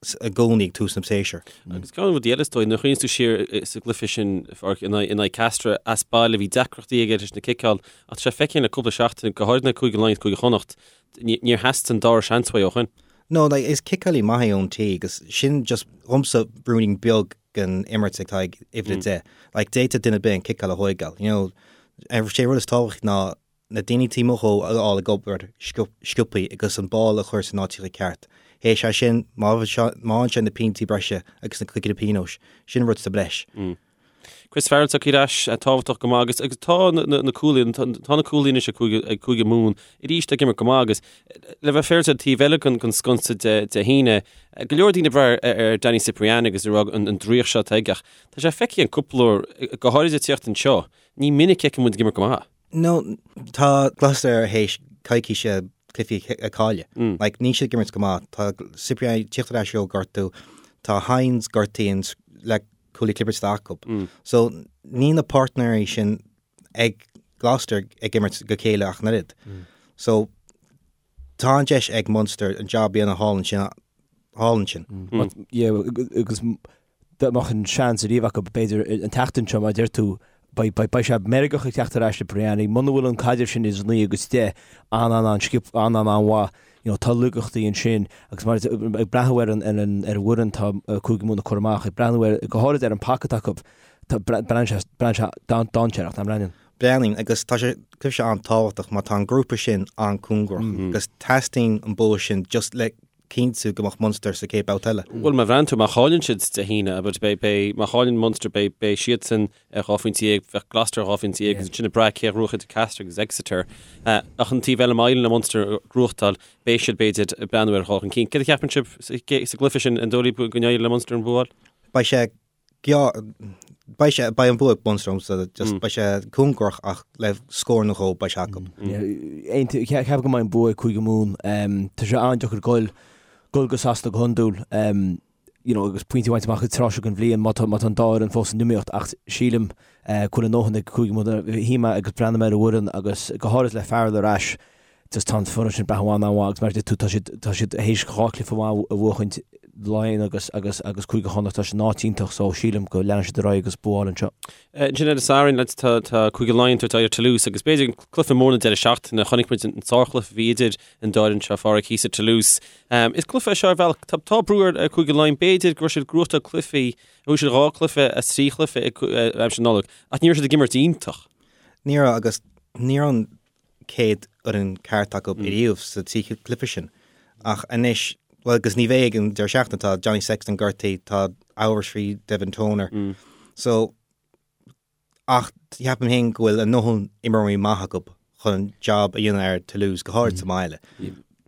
i gcónaí ag tús na séasúr. Agus ceann de na rudaí eile is dóigh, nuair a chuimhníonn tú siar sa gcluiche sin in aghaidh Castres as baile, bhí deacrachtaí aige leis na ciceáil ach tá sé feicthe le cúpla seachtain, go háirid in aghaidh Cúige Laighean is Cúige Chonnacht, níor theastaigh an dara seans uaidh ó shin. No, like, is ciceálaí maith é ón tí agus sin just dhomsa ruainnín beag den imirt atá ag uimhir a 10. Like, d'fhéadfadh duine ar bith an ciceáil a thóigeáil, you know. Sé rud is tábhachtaí ná na daoine timpeall dhó a fháil ag obair sciobthaí agus an ball a chur san áit cheart. Théis é sin, má fhaigheann sé na pointí breise agus na ciceanna pionóis, sin rud sa bhreis. Chris Farrell tagtha ar ais, tábhachtach go maith agus agus tá na cúlaí, tá na cúlaí anois ag Cúige Mumhan arís ag imirt go maith agus le bheith féaráilte taobh eile den sconsa Dé hAoine, go leor daoine ag brath ar Danny Cipriani agus ag rá an draíocht seo atá aige ach tá sé feicthe an cúpla uair, go háirid an tseachtain seo, ní minic a fheiceann muid ag imirt go maith. No, tá Gloucester théis coicís cluichí a chailleadh. Like, níl siad ag imirt go maith. Tá Cipriani ag tíocht ar ais ó gortú. Tá Hynes gortaithe le cúlaí clibirte acu. So, níl na páirtnéirí sin ag Gloucester ag imirt go chéile ach an oiread. So, tá an deis ag Munster an job a dhéanamh thall ansin. Thall ansin. Yeah, agus dá mbeadh an seans ariamh acu, b'fhéidir, an tseachtain seo, mar a deir tú, beidh, beidh, beidh sé meirgeach ag teacht ar ais Cipriani. Muna bhfuil an caidreamh sin idir 9 agus 10 an-an-an sciop, an-an-an-mhaith, you know, tá laigeachtaí ansin agus mar, ag breathnú ar an, ar an, ar an bhfoireann tá Cúige Mumhan ag cur amach, ag breathnú ar, go háirid ar an paca atá acu, tá, breathnaíonn sé, breathnaíonn sé dainséarach, nach mbreathnaíonn? Breathnaíonn, agus tá sé, cluiche seo an-tábhachtach mar tá an grúpa sin an-cúngarach agus teastaíonn an bua sin just le cinntiú go mbeadh Munster sa chéad babhta eile. Bhuel, má bhreathnaíonn tú, má chailleann siad Dé hAoine, abair, beidh, beidh, má chailleann Munster, beidh, beidh siadsan ar 12 phointe, bheadh Gloucester ar 12 phointe agus ansin ag brath cé a ghnóthóidh idir Castres agus Exeter. Ach an taobh eile, má éiríonn le Munster gnóthachtáil, beidh siad, b'fhéidir, ag breathnú ar dhul chun cinn. Céard a cheapann sibh sa gcluiche sin, an dóigh libh go n-éireoidh le Munster an bua a fháil? Beidh sé Beidh sé, beidh an bua ag Munster domsa, just beidh sé cóngarach ach le scór nó dhó beidh sé acu. Ceapaim go mbeidh an bua ag Cúige Mumhan. Tá sé an-deacair goil, goil go Sasana go hiondúil, you know, agus pointí a bhaint amach an tráth seo den bhliain má tá, má tá an dá fhoireann fós san iomaíocht ach sílim go bhfuil a ndóthain ag Cúige Mumhan. Shuigh mé agus breathnaigh mé ar an bhfoireann agus go háirid le Farrell ar ais, just tá an foireann sin breathnú an-an-mhaith agus mar a deir tú tá siad tá siad théis 2 cluiche mhaith a bhuachaint Laighean agus agus agus Cúige Chonnacht tá siad in áit iontach so sílim go leanfaidh siad ar aghaidh agus bua a fháil anseo. Ansin ar an Satharn lads tá tá Cúige Laighean ag tabhairt aghaidh ar Toulouse agus b'fhéidir an cluiche mór na deireadh seachtaine chonaic muid an sárchluiche a bhí idir an dá fhoireann seo a Pháraic thíos i Toulouse. Is cluiche é seo ar bhealach tá tá brú ar ar Cúige Laighean b'fhéidir go raibh siad ag gnóthachtáil cluichí bhuaigh siad 2 cluiche as 3 chluiche aimsir Nollag ach ní raibh siad ag imirt iontach. Ní raibh agus ní raibh an chéad fhoireann ceart acu ariamh sa trí chluiche sin. Ach anois, bhuel, agus ní bheidh ag an deireadh seachtaine, tá Johnny Sexton gortaithe, tá amhras faoi Devin Toner. So, ach ceapaim féin go bhfuil a ndóthain imreoirí maith acu chun an job a dhéanamh ar Toulouse, go háirid sa mbaile.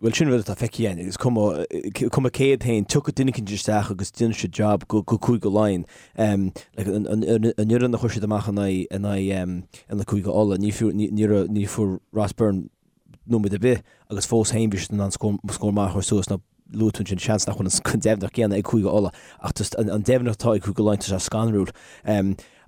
Bhuel, sin rud atá feicthe againn, is cuma, cuma cé hiad féin, tiocfaidh duine eicínt isteach agus déanfaidh siad job go, go Cúige Laighean. Like, an, an, an, an fhoireann a chuir siad amach in aghaidh, in aghaidh, in aghaidh Cúige Uladh, ní fiú, ní, ní raibh, ní fuair Ross Byrne nóiméad ar bith agus fós féin bhí siad in ann scór, scór maith a chur suas. Now, luaigh tú ansin seans nach bhfuil an deimhneacht céanna ag Cúige Uladh ach just an, an deimhneacht atá ag Cúige Laighean tá sé scanrúil.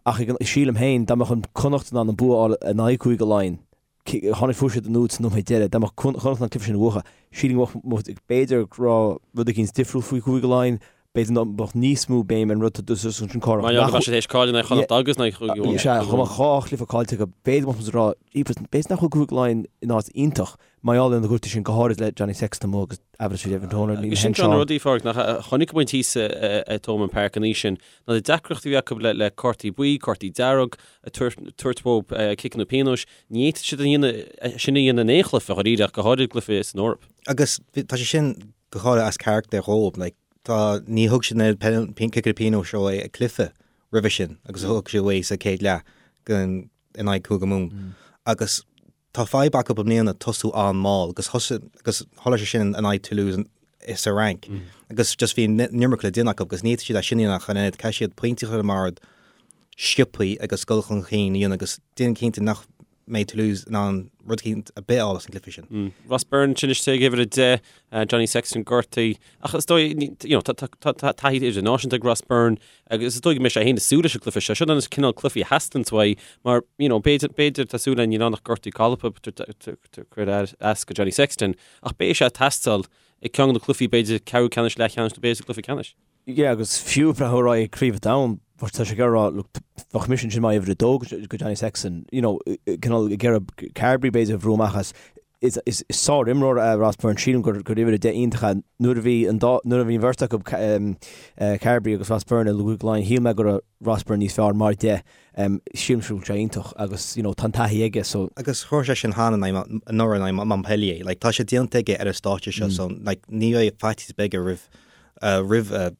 Ach ag an, sílim féin, dá mbeadh an Connacht in ann an bua a fháil in aghaidh Cúige Laighean, Tháinig fuair siad an úd sa nóiméad deiridh. Dá mbeadh Connacht in ann an cluiche sin a bhuachan, sílim go mbeadh muid b'fhéidir ag rá rud eicínt difriúil faoi Chúige Laighean, b'fhéidir nach mbeadh níos mó béim ar an rud ansin Cárthach. Mar gheall go raibh siad théis cailleadh in aghaidh Chonnacht agus in aghaidh Chúige Uladh. Sea, chomh maith 2 chluiche caillte acu, b'fhéidir go mbeadh muid ag rá, b'fhéidir nach bhfuil Cúige Laighean in áit iontach mar gheall ar na gortuithe sin, go háirid le Johnny Sexton amuigh agus amhras faoi Devin Toner, níl Sin ceann de na rudaí, a Pháraic, nach a chonaic muid thíos i Thomond Park an oíche sin, ná na deacrachtaí a bhí acu le cártaí buí, cártaí dearg, a tabhairt dóibh ciceanna pionóis. Ní fhéadfaidh siad a dhéanamh sin a dhéanamh in aon chluiche, dháiríre, ach go háirid i gcluiche san Eoraip. Agus tá sé sin go háirithe as charachtar dhóibh. Like, tá, ní thug siad na ciceanna pionóis uaidh i cluiche roimhe sin agus a thug siad uaidh sa chéad leath in aghaidh Cúige Mumhan. Agus Tá fadhb acu i mbliana tosú an-mhall agus thosaigh agus tharla sé sin in aghaidh Toulouse sa Fhrainc agus just bhí an iomarca le déanamh acu agus ní fhéadfaidh siad é sin a dhéanamh ach an oiread. Caithfidh siad pointí a chur ar an mbord sciobthaí agus dul chun cinn a dhéanamh agus déanamh cinnte nach mbeidh Toulouse in ann rud eicínt ar bith a fháil as an gcluiche sin. Ross Byrne sin istigh ag uimhir 10, Johnny Sexton gortaithe ach is dóigh you know tá taithí idirnáisiúnta ag Ross Byrne Agus is dóigh go mbeidh sé féin ag súil leis an gcluiche seo. Seo an cineál cluichí a theastaíonns uaidh mar, you know, b'fhéidir, b'fhéidir, tá súil againn níl ann ach gortú colpa, cuir as go Johnny Sexton, ach beidh sé ag teastáil ag ceann de na cluichí b'fhéidir ceathrú ceannais, leathcheannais nó b'fhéidir sa gcluiche ceannais. Yeah agus fiú ag breathnú ar aghaidh ag Craobh an Domhain, tá sé ag rá, look, bheadh mise ansin mar uimhir a dó go Johnny Sexton, you know, cineál ag iarraidh Carbery b'fhéidir a bhrú amach as. Is is sár-imreoir é Ross Byrne, sílim gur gur uimhir a 10 iontach é. Nuair a bhí an dá, nuair a bhí an bheirt acu, Carbery agus Ross Byrne i Cúige Laighean, shíl mé go raibh Ross Byrne níos fearr mar 10. Sílim go bhfuil sé iontach agus, you know, tá an taithí aige so. Agus chroch sé sin cheana in aghaidh, anuraidh in aghaidh Montpellier. Like, tá sé déanta aige ar an stáitse seo so, like, ní bheidh faitíos ar bith aige roimh, roimh,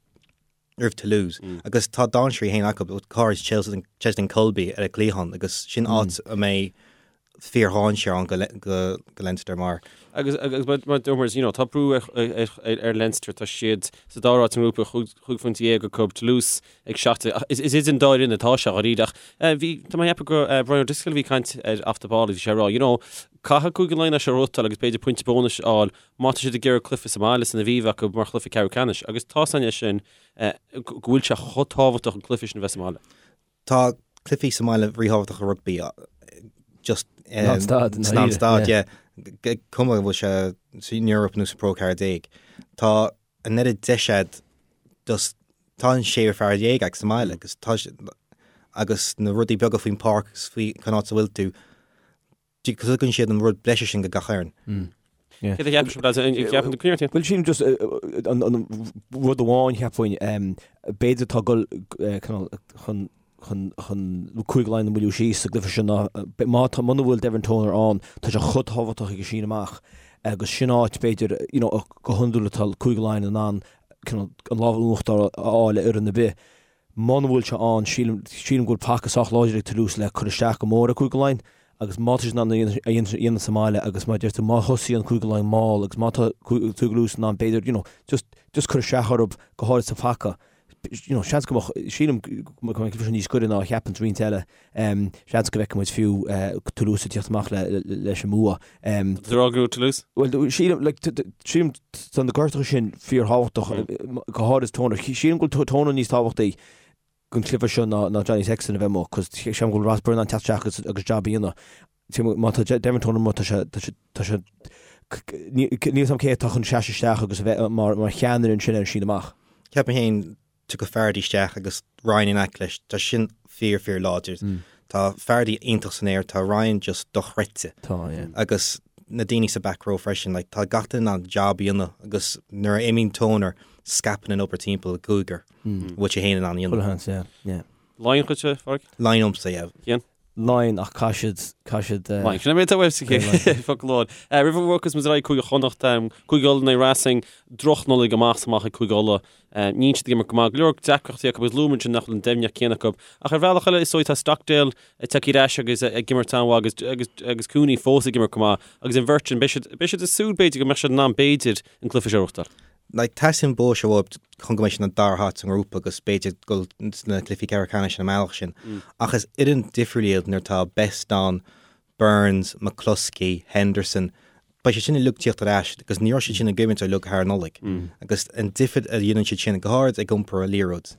roimh Toulouse. Agus tá dainséar féin acu, Córas Cheslin Kolbe ar an gcliathán agus sin áit a mbeidh fíordhainséar ann go Leinster mar. Agus agus mar dúirt you know, tá brú ar Leinster, tá siad sa dara háit sa ngrúpa, 15 phointe acu, Toulouse ag 17, ach is idir an dá fhoireann atá sé dháiríre ach bhí, tá mé ag ceapadh gur Brian O'Driscoll a bhí ag caint ar Off the Ball, bhí sé ag rá, you know, caithfidh Cúige Laighean é seo a ghnóthachtáil agus b'fhéidir pointe bónais a fháil má tá siad ag iarraidh cluiche sa mbaile san Aviva acu mar chluiche ceathrú ceannais agus tá san é sin go bhfuil sé chomh tábhachtach an cluiche sin a bheith sa mbaile. Tá cluichí sa mbaile ríthábhachtach i rugbaí just Non-stad, non-stad, yeah. Cuma an bhfuil sé san Eoraip nó sa Pro 14. Tá an oiread deis agat just tá an séú fear dhéag agat sa mbaile agus tá agus na rudaí beaga faoin páirc agus faoi cén áit a bhfuil tú Tugann siad an rud breise sin go gach fhoireann. Céard a cheapann sibh lads? An gceapann tú Ciarán? Bhuel sílim just an rud amháin cheapfainn b'fhéidir atá ag dul cineál chun chun chun Cúige Laighean a mhoilliú síos sa gcluiche sin ná má tá muna bhfuil Devin Toner ann tá sé chomh tábhachtach ag an síneadh amach agus sin áit b'fhéidir you know go hiondúil atá Cúige Laighean in ann cineál an lámh in uachtar a fháil ar fhoireann ar bith. Muna bhfuil sé ann, sílim, sílim go bhfuil paca sách láidir ag Toulouse le cur isteach go mór ar Cúige Laighean agus má tá siad in ann é a dhéanamh sa mbaile agus mar a deir tú, má thosaíonn Cúige Laighean mall agus má tá Toulouse in ann b'fhéidir, you know, just, just cur isteach orthu go háirid sa phaca, you know, seans go mbeadh, sílim go mbeidh an cluiche níos gaire ná a cheapann roinnt eile. Seans go bhfeicfidh muid fiú Toulouse ag tíocht amach leis an mbua. Tá tú ag rá go Toulouse? Bhuel, sílim, like, sílim tá na gortuithe sin fíorthábhachtach, go háirid Toner. Sílim go bhfuil Toner níos tábhachtaí don chluiche seo ná ná Johnny Sexton a bheith amuigh, cos sílim go bhfuil Ross Byrne in ann teacht isteach agus agus jab a dhéanamh. Sílim má tá Devin Toner amuigh tá sé tá sé tá sé níl a fhios agam cé atá chun seasamh isteach agus a bheith mar mar cheannaire ansin ar an síneadh amach. Ceapaim féin Tiocfaidh Fardy isteach agus Ryan in aice leis. Tá sin fíor, fíor láidir. Tá Fardy iontach san aer, tá Ryan just dochreidte. Tá, yeah. Agus na daoine sa back row freisin, like, tá gach duine in ann job a dhéanamh agus nuair a imíonn Toner, scaipeann an obair timpeall an cúigear. Bhfuil sé féin in ann a dhéanamh. Chuile sheans, yeah, yeah. Laighean dhuitse, a Phádraig? Laighean domsa, yeah. Cian? Laighean ach caithfidh siad, caithfidh siad. Laighean. Sin é tá uaibhse focal amháin. Roimh a bhogfas muid ar aghaidh Cúige Chonnacht, Cúige Uladh in aghaidh Racing, droch-Nollaig amach is amach ag Cúige Uladh. Níl siad ag imirt go maith. Go leor deacrachtaí acu agus luaigh muid ansin nach bhfuil an deimhneacht céanna acu. Ach ar bhealach eile is dóigh tá Stockdale ag teacht ar ais agus ag imirt an-mhaith agus, agus, agus Cooney fós ag imirt go maith. Agus an bheirt sin, beidh siad, beidh siad ag súil b'fhéidir go mbeadh siad in ann b'fhéidir an cluiche seo a ghnóthachtáil. Like, teastaíonn bua seo uathub chun go mbeidh siad an dara háit sa ngrúpa agus b'fhéidir dul sna cluichí ceathrú ceannais an mbealach sin. Ach is fhoireann difriúil iad nuair atá Best ann, Burns, McCloskey, Henderson, beidh siad sin uilig tíocht ar ais agus ní raibh siad sin ag imirt uilig thar an Nollaig. Agus an difear a dhéanann siad sin, go háirid ag iompar an liathróid,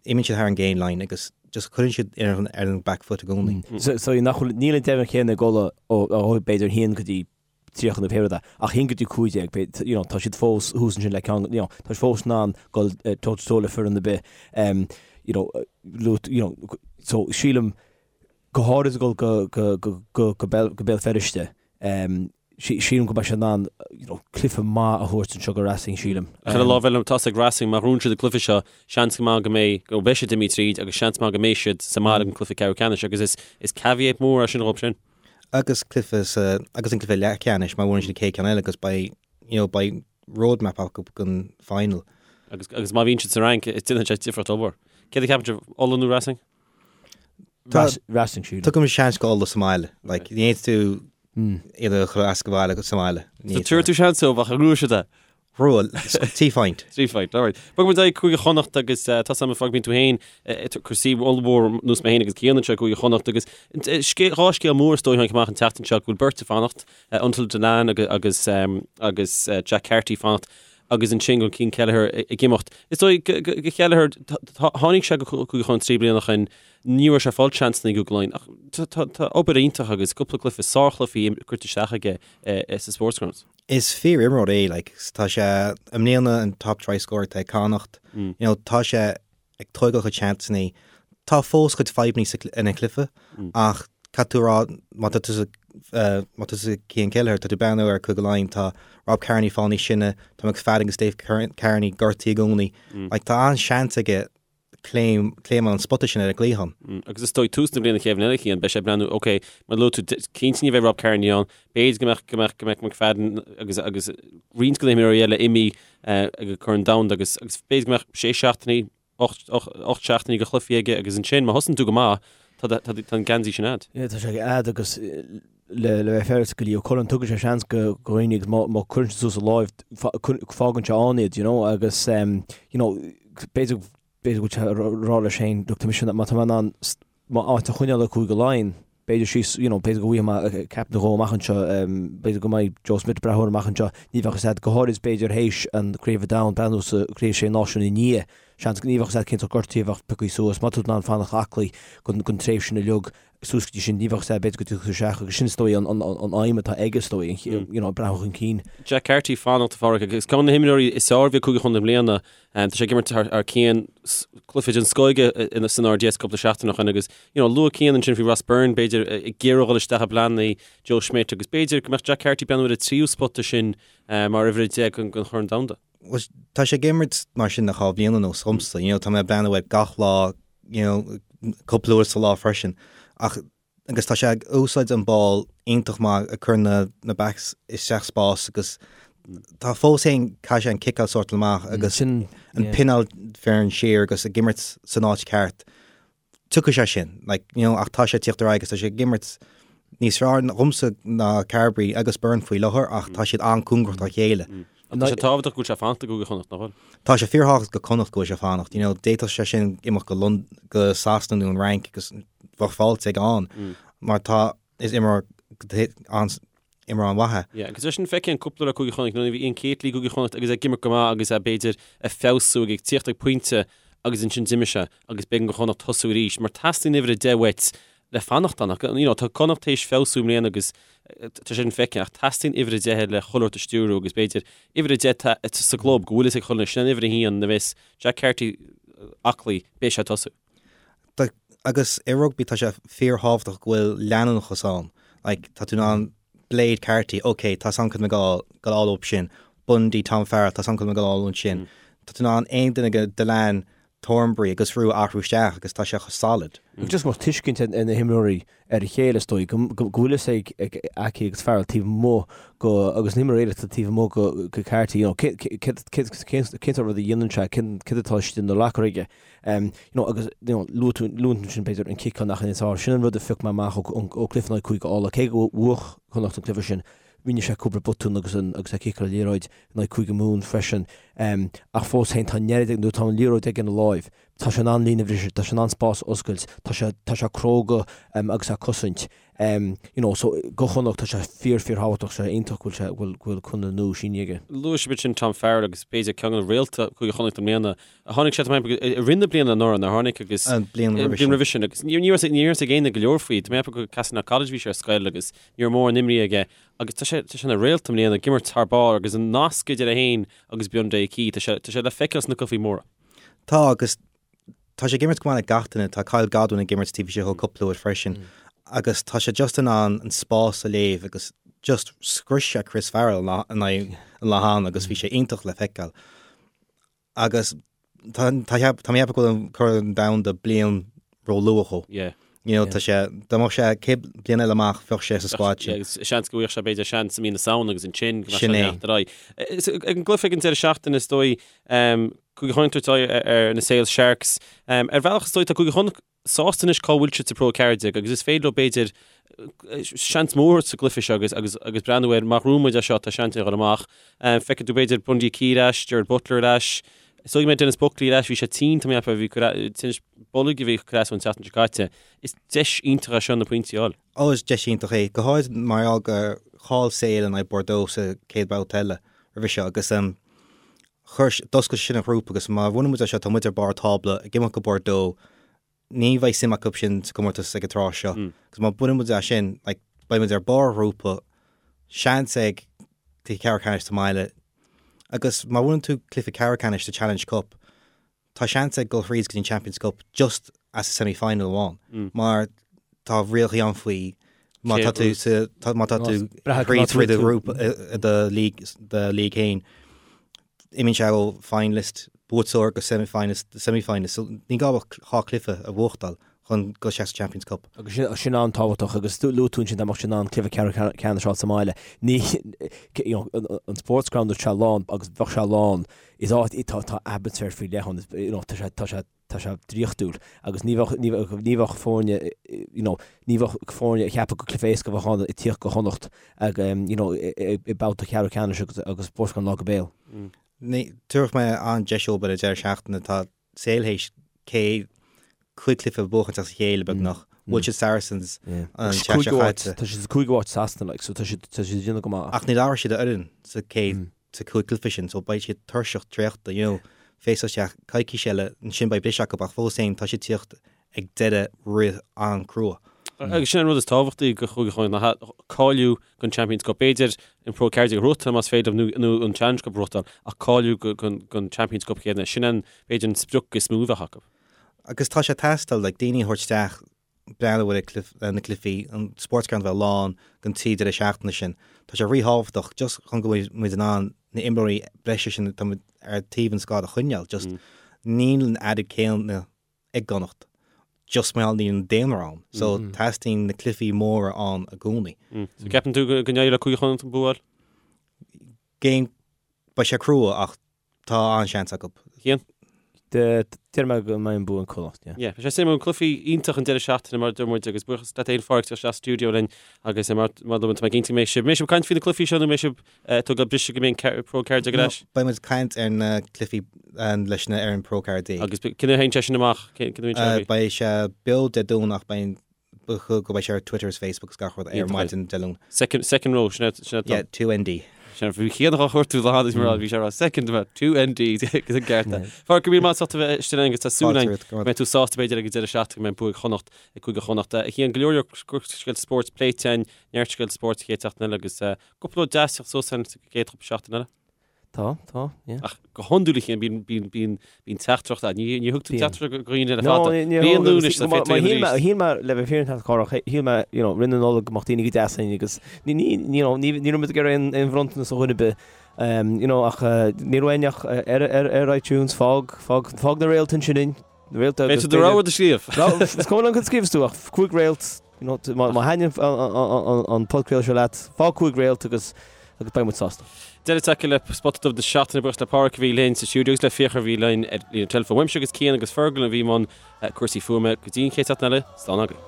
imíonn siad thar an gain line agus just cuireann siad ar an, ar an back foot i gcónaí. So, so nach bhfuil, níl an deimhneacht chéanna ag Ulaidh ó, ó b'fhéidir 1 go dtí 30 nó pé rud é, ach 1 go dtí 15, pé, you know, tá siad fós thuas ansin le ceann, you know, tá siad fós in ann dul toe to toe le foireann ar bith, um, you know, luath, you know, so sílim go háirid ag dul go, go, go, go, go Béal, go Béal Feirste, um, sí, sílim go mbeidh siad in ann, you know, cluiche maith a thabhairt anseo go Racing, sílim. Ach ar an lámh eile, tá a fhios ag Racing, má ghnóthaíonn siad an cluiche seo, seans go maith go mbeidh, go mbeidh siad imithe tríd agus seans maith go mbeidh siad sa mbaile don cluiche ceathrú ceannais agus is, is caveat mór é sin dhóibh sin. Agus cluiche sa, agus an cluiche leathcheannais má bhuann siad an chéad ceann eile agus beidh, you know, beidh roadmap acu don final. Agus, agus má bhíonn siad sa Fhrainc, déanann sé difríocht ollmhór. Céard a cheapann sibh, Ulaidh nó Racing? Tá, Racing, sílim. Tugaim seans go Ulaidh sa mbaile. Like, ní fhéadfaidh tú iad a chur as go bhaile sa mbaile. So tabharfaidh tú seans dóibh ach an ngnóthóidh siad é? Rua, trí phointe. Trí phointe, alright. Bogfaidh muid ar aghaidh Cúige Chonnacht agus tá a fhios agam a Phádraig bíonn tú féin ag cur suim ollmhór ar nós mé féin agus Cian anseo i gCúige Chonnacht agus dhá scéal mór is dóigh a tháinig amach an tseachtain seo go bhfuil beirt ag fanacht, Until Dillane agus agus Jack Carty ag fanacht agus ansin go bhfuil Cian Kelleher ag imeacht. Is dóigh go Kelleher tháinig sé go Cúige Chonnacht 3 bliana ó shin, ní raibh sé ag fáil seansanna i gCúige Laighean ach tá obair iontach agus cúpla cluiche sárchluichí curtha isteach aige sa Sportsgrounds. Is fíor-imreoir é, like, tá sé i mbliana an top try scorer atá ag Connacht, you know, tá sé ag tógáil a chuid seansanna. Tá fós cuid fadhbanna sa ina chluiche ach caithfidh tú a rá má tá tusa má tá tusa Cian Kelleher, tá tú ag breathnú ar Cúige Laighean, tá Rob Kearney fáil níos sine, tá McFadden agus Dave Kearney gortaithe i gcónaí. Like, tá an-seans aige claim claim an spota sin ar an gcliathán. Agus is dóigh tús na bliana chéad bhliain eile Cian, beidh sé ag breathnú, ok, mar luaigh tú, cinnte ní bheidh Rob Kearney ann, b'fhéidir go mbeadh, go mbeadh, go mbeadh McFadden agus, agus roinnt de na himreoirí eile imithe ag an Corn Domhanda agus, agus b'fhéidir go mbeadh sé seachtainí, 8 seachtainí de chluichí aige agus ansin má thosaíonn tú go maith, tá, tá, tá an geansaí sin a'd. Yeah, tá sé a'd agus le le bheith féaráilte go Leo Cullen tugann sé seans go dhaoine agus má má cuireann sé suas a láimh fágann sé ann iad, you know, agus um, you know, b'fhéidir b'fhéidir go bhfuil sé ag rá leis féin, look, tá mise má tá mé in ann m'áit a choinneáil le Cúige Laighean, b'fhéidir síos, you know, b'fhéidir go bhfaighidh mé captain nó dhó amach anseo, b'fhéidir go mbeidh Joe Schmidt ag breathnú amach anseo, ní bheadh fhios a'd, go háirid b'fhéidir théis an Craobh an Domhain, breathnú sa Craobh Sé Náisiún i ndiaidh, seans ní bheadh fhios a'd cén sórt gortuithe a bheadh pioctha suas, má tá tú in ann fanacht aclaí don tréimhse sin uilig, suas go dtí sin, ní bheadh fhios a'd, b'fhéidir go dtiocfadh tú isteach agus sin is dóigh an aidhm atá aige is dóigh, you know, breathnú chun cinn. Jack Carty fanacht a Phádraig agus ceann de na himreoirí is fearr a bhí ag Cúige Chonnacht i mbliana. Tá sé ag imirt thar cionn cluiche den scoth aige san RDS cúpla seachtain ó shin agus you know, luaigh Cian ansin faoi Ross Byrne b'fhéidir ag iarraidh dhul isteach i bpleananna Joe Schmidt agus b'fhéidir go mbeadh Jack Carty ag breathnú ar an tríú spota sin mar uimhir 10 don Chorn Domhanda. Well, tá sé ag imirt mar sin le dhá bhliain anuas dhomsa, you know, tá mé ag breathnú air gach lá, you know, cúpla uair sa lá freisin. Ach agus tá sé ag úsáid an ball iontach maith ag cur na na backs isteach spás agus tá fós féin caithfidh sé an ciceáil sort amach agus Sin an pinneáil foireann siar agus ag imirt san áit ceart. Tiocfaidh sé sin, like, you know, ach tá sé ag tíocht ar aghaidh agus tá sé ag imirt níos fearr dhomsa ná Carbery agus Byrne faoi láthair ach tá siad an-cóngarach dá chéile. Tá sé tábhachtach go bhfuil sé ag fanacht i gCúige Chonnacht, nach bhfuil? Tá sé fíorthábhachtach do Connacht go bhfuil sé ag fanacht, you know, d'fhéadfadh sé sin imeacht go Lon go Sasana nó an Fhrainc agus bheadh fáilte aige ann mar tá is imreoir an imreoir an-mhaith é. Yeah, agus leis sin feicthe an cúpla le Cúige Chonnacht, nuair a bhí Ian Keatley i gCúige Chonnacht agus é ag imirt go maith agus é b'fhéidir ag feabhsú ag ag tíocht ag pointe agus ansin d'imigh sé agus b'éigean do Chonnacht tosú arís mar teastaíonn uimhir 10 uait le fanacht ann. You know, tá Connacht théis feabhsú i mbliana agus tá sé sin feicthe ach teastaíonn uimhir 10 le chuile shórt a stiúrú agus b'fhéidir uimhir 10 sa gclub go bhfuil fhios ag chuile sin an uimhir 1 nuair a bheas Jack Carty aclaí beidh sé ag tosú. Agus i rugbaí tá sé fíorthábhachtach go bhfuil leanúnachas ann. Like, tá tú in ann Blade Carty, ok, tá san chun gabháil gabháil sin. Bundee, Tom Farrell, tá san chun gabháil ansin. Tá tú in ann aon duine go Dillane, Thornbury agus Roux a athrú isteach agus tá sé chomh solid. Agus just go mbeadh tuiscint ag na himreoirí ar a chéile is dóigh, go bhfuil fhios ag Aki agus Farrell taobh amuigh go, agus na himreoirí eile atá taobh amuigh go go Carty, you know, cén sórt rud a dhéanann sé, céard atá istigh ina locker aige. You know, agus you know, luaigh tú, luann tú ansin b'fhéidir an ciceáil nach is fearr, sin an rud a phioc mé amach ó ó chluiche in aghaidh Cúige Uladh, cé go bhuaigh Connacht an cluiche sin, rinne sé cúpla botún agus an agus é ag ciceáil an liathróid in aghaidh Cúige Mumhan freisin. Ach fós féin tá an oiread ag nuair atá an liathróid aige ina láimh, tá sé in ann líne a bhriseadh, tá sé in ann spás a oscailt, tá sé tá sé cróga agus é ag cosaint. You know, so go Chonnacht tá sé fíor fíor thábhachtach, sé iontach go bhfuil sé go bhfuil go bhfuil conradh nua sínithe aige. Luaigh sibh ansin Tom Farrell agus b'fhéidir ceann de na réalta Cúige Chonnacht i mbliana. Tháinig sé tá mé ag ceapadh i rith na bliana anuraidh, nár tháinig agus An bliain roimhe sin. roimhe sin agus ní ní raibh ní raibh ag éinne go leor faoi. Tá mé ag ceapadh go Castleknock College bhí sé ar scoil agus Ní raibh mórán imní aige agus tá sé tá sé ina réalt i mbliana, ag imirt thar barr agus an nasc idir é féin agus Bundee Aki, tá sé tá sé le feiceáil sna cluichí móra. Tá agus tá sé ag imirt go maith le gach duine, tá Kyle Godwin ag imirt taobh istigh dhó cúpla uair freisin agus tá sé just in ann an spás a léamh agus just scrios sé Chris Farrell in aghaidh an lá cheana agus bhí sé iontach le feiceáil. Agus tá tá mé ag ceapadh go bhfuil an Corn Domhanda bliain ró-luath dhó. Yeah. You know, tá sé, dá mbeadh sé céad bliain eile amach, bheadh sé sa squad sin. Yeah, seans go bhfaigheadh sé b'fhéidir seans i mí na Samhna agus ansin go mbeadh sé Sin é. ag ar aghaidh. Ag an gcluiche ag an deireadh seachtaine is dóigh, Cúige Chonnacht ag tabhairt aghaidh ar na Sale Sharks. Ar bhealach is dóigh tá Cúige Chonnacht sásta anois cá bhfuil siad sa Pro 14 agus is féidir leo b'fhéidir seans mór sa gcluiche seo agus agus agus breathnú ar má bhuann muid é seo tá seans ag dul amach. Feicfidh tú b'fhéidir Bundee Aki ar ais, Gerard Butler ar ais. Is dóigh go mbeidh Denis Buckley ar ais, bhí sé tinn, tá mé ag ceapadh, bhí tinneas boilg a bhí ag cur as dó an tseachtain seo caite. Is deis iontach é seo na pointí a fháil. Ó is deis iontach é, go háirid mar gheall gur chaill Sale in aghaidh Bordeaux sa chéad babhta eile roimhe seo agus chuir, d'oscail sin an ghrúpa agus má bhuann muid é seo tá muid ar barr tábla ag imeacht go Bordeaux, ní bheidh suim acu sin sa gcomórtas ag an tráth seo. Agus má bhuann muid é sin, like, beidh muid ar barr ghrúpa, seans ag. Cluiche ceathrú ceannais sa mbaile agus má bhuann tú cluiche ceathrú ceannais sa Challenge Cup, tá seans ag dul thríd go dtí an Champions Cup just as an semi-final amháin mar tá rialacha ann faoi má tá tú sa má tá tú thríd through the group i do league do league féin imíonn sé ó finalist buaiteoir go semi-finalist semi-finalist so ní gá ach dhá cluiche a bhuachtáil chun dul isteach sa Champions Cup. Agus sin sin an-tábhachtach agus luaigh tú ansin dá mbeadh siad in ann cluiche ceathrú ceannais a fháil sa mbaile. Ní you know an Sportsground tá sé lán agus bheadh sé lán is áit í tá tá atmaisféar faoi leith ann you know tá sé tá sé tá sé draíochtúil agus ní bheadh ní bheadh ní bheadh foirne you know ní bheadh foirne a cheapfadh gur cluiche éasca a bheadh ann ag tíocht go Chonnacht ag you know i i babhta ceathrú ceannais agus agus Sportsground lán go béal. Ní tabharfaidh mé an-deis dóibh ar an deireadh seachtaine tá Sale théis cé cúig cluiche a bhuachaint as a chéile beagnach. Bhuail siad Saracens an tseachtain seo caite. Tá siad sa cúigiú háit i Sasana like so tá siad tá siad ag déanamh go maith. Ach níor athraigh siad a fhoireann sa chéad sa cúig cluiche sin so beidh siad tuirseach traochta you know féasáil isteach coicís eile ansin beidh briseadh acu ach fós féin tá siad tíocht ag deireadh rith an-crua. Agus sin an rud is tábhachtaí go Chúige Chonnacht ná cáiliú don Champions Cup. B'fhéidir an Pro 14 a ghnóthachtáil más féidir nó nó an Challenge Cup a ghnóthachtáil ach cáiliú don Champions Cup chéanna. Sin an b'fhéidir an sprioc is mó a bheadh acu. Agus tá sé ag teastáil like daoine a thabhairt isteach breathnú ar na cluichí, an Sportsground a bheith lán don tí deireadh seachtaine sin. Tá sé ríthábhachtach just chun go bhfuil muid in ann na imreoirí breise sin atá ar taobh an squad a choinneáil. Just níl an airgead céanna ag gConnacht just mar níl an daonra ann so teastaíonn na cluichí móra ann i gcónaí. So ceapann tú go n-éireoidh le Cúige Chonnacht an bua a fháil? Game, beidh sé crua ach tá an-seans acu. Cian? Deir mé go mbeidh an bua ag Connacht, yeah. Yeah, beidh sé suimiúil, cluichí iontach an deireadh seachtaine mar a dúirt muid agus buíochas leat féin a Phádraig as teacht isteach sa stiúideo linn agus mar mar a dúirt muid tá mé cinnte go mbeidh sibh, mbeidh sibh ag caint faoi na cluichí seo nó mbeidh sibh ag tógáil briseadh go mbeidh an Pro 14 ar ais? Beidh muid ag caint ar na cluichí leis na ar an Pro 14. Agus cén uair a théann sé sin amach? Cén uair a théann sé? Beidh sé beo Dé Domhnach beidh go beidh sé ar Twitter is Facebook is gach rud ar maidin Dé Luain. Second second row sin sin Yeah, 2ND. Sin bhí chéad a chuir tú lá agus mar bhí sé rá second about 2ND agus an ceart. Fear go míle maith as ucht a bheith istigh linn agus tá súil againn go mbeidh tú sásta b'fhéidir ag an deireadh seachtaine go mbeidh bua ag Chonnacht ag Cúige Chonnacht. A Chian go leor leor scéalta spóirt pléite againn, neart scéalta spóirt an chéad seachtain eile agus Cúpla rud deas ag teacht suas an chéad chúpla seachtain eile. Tá, tá, yeah. Ach go hiondúil a Chian, bíonn, bíonn, bíonn, bíonn teachtaireacht agat. Ní, ní thug tú teachtaireacht go dhaoine le fada. Bíonn nó anois, tá féith Shíl mé, shíl mé, le bheith fírinneach cárach, shíl mé, you know, roimh an Nollaig go mbeadh daoine go deas linn agus ní, ní, you know, ní, ní raibh muid ag iarraidh aon, aon bhronntanas ó dhuine ar bith. Um, you know, ach uh, ní raibh aon ach ar, ar, ar iTunes, fág, fág, fág na réalta ansin dúinn. Na réalta agus Beidh tú do rogha rud a scríobh. Is cuma liom cad a scríobhas tú ach cúig réalt, you know, má má thaitníonn an podchraoladh seo leat, fág cúig réalt agus agus beidh muid sásta. Deireadh tagtha le Spota Dubh na seachtaine, buíochas le Páraic a bhí linn sa stiúideo agus le Fiachra a bhí linn ar líne teileafóin. Uaimse agus Cian agus Fergal a bhí i mbun cúrsaí fuaime. Go dtí an chéad seachtain eile, slán agaibh.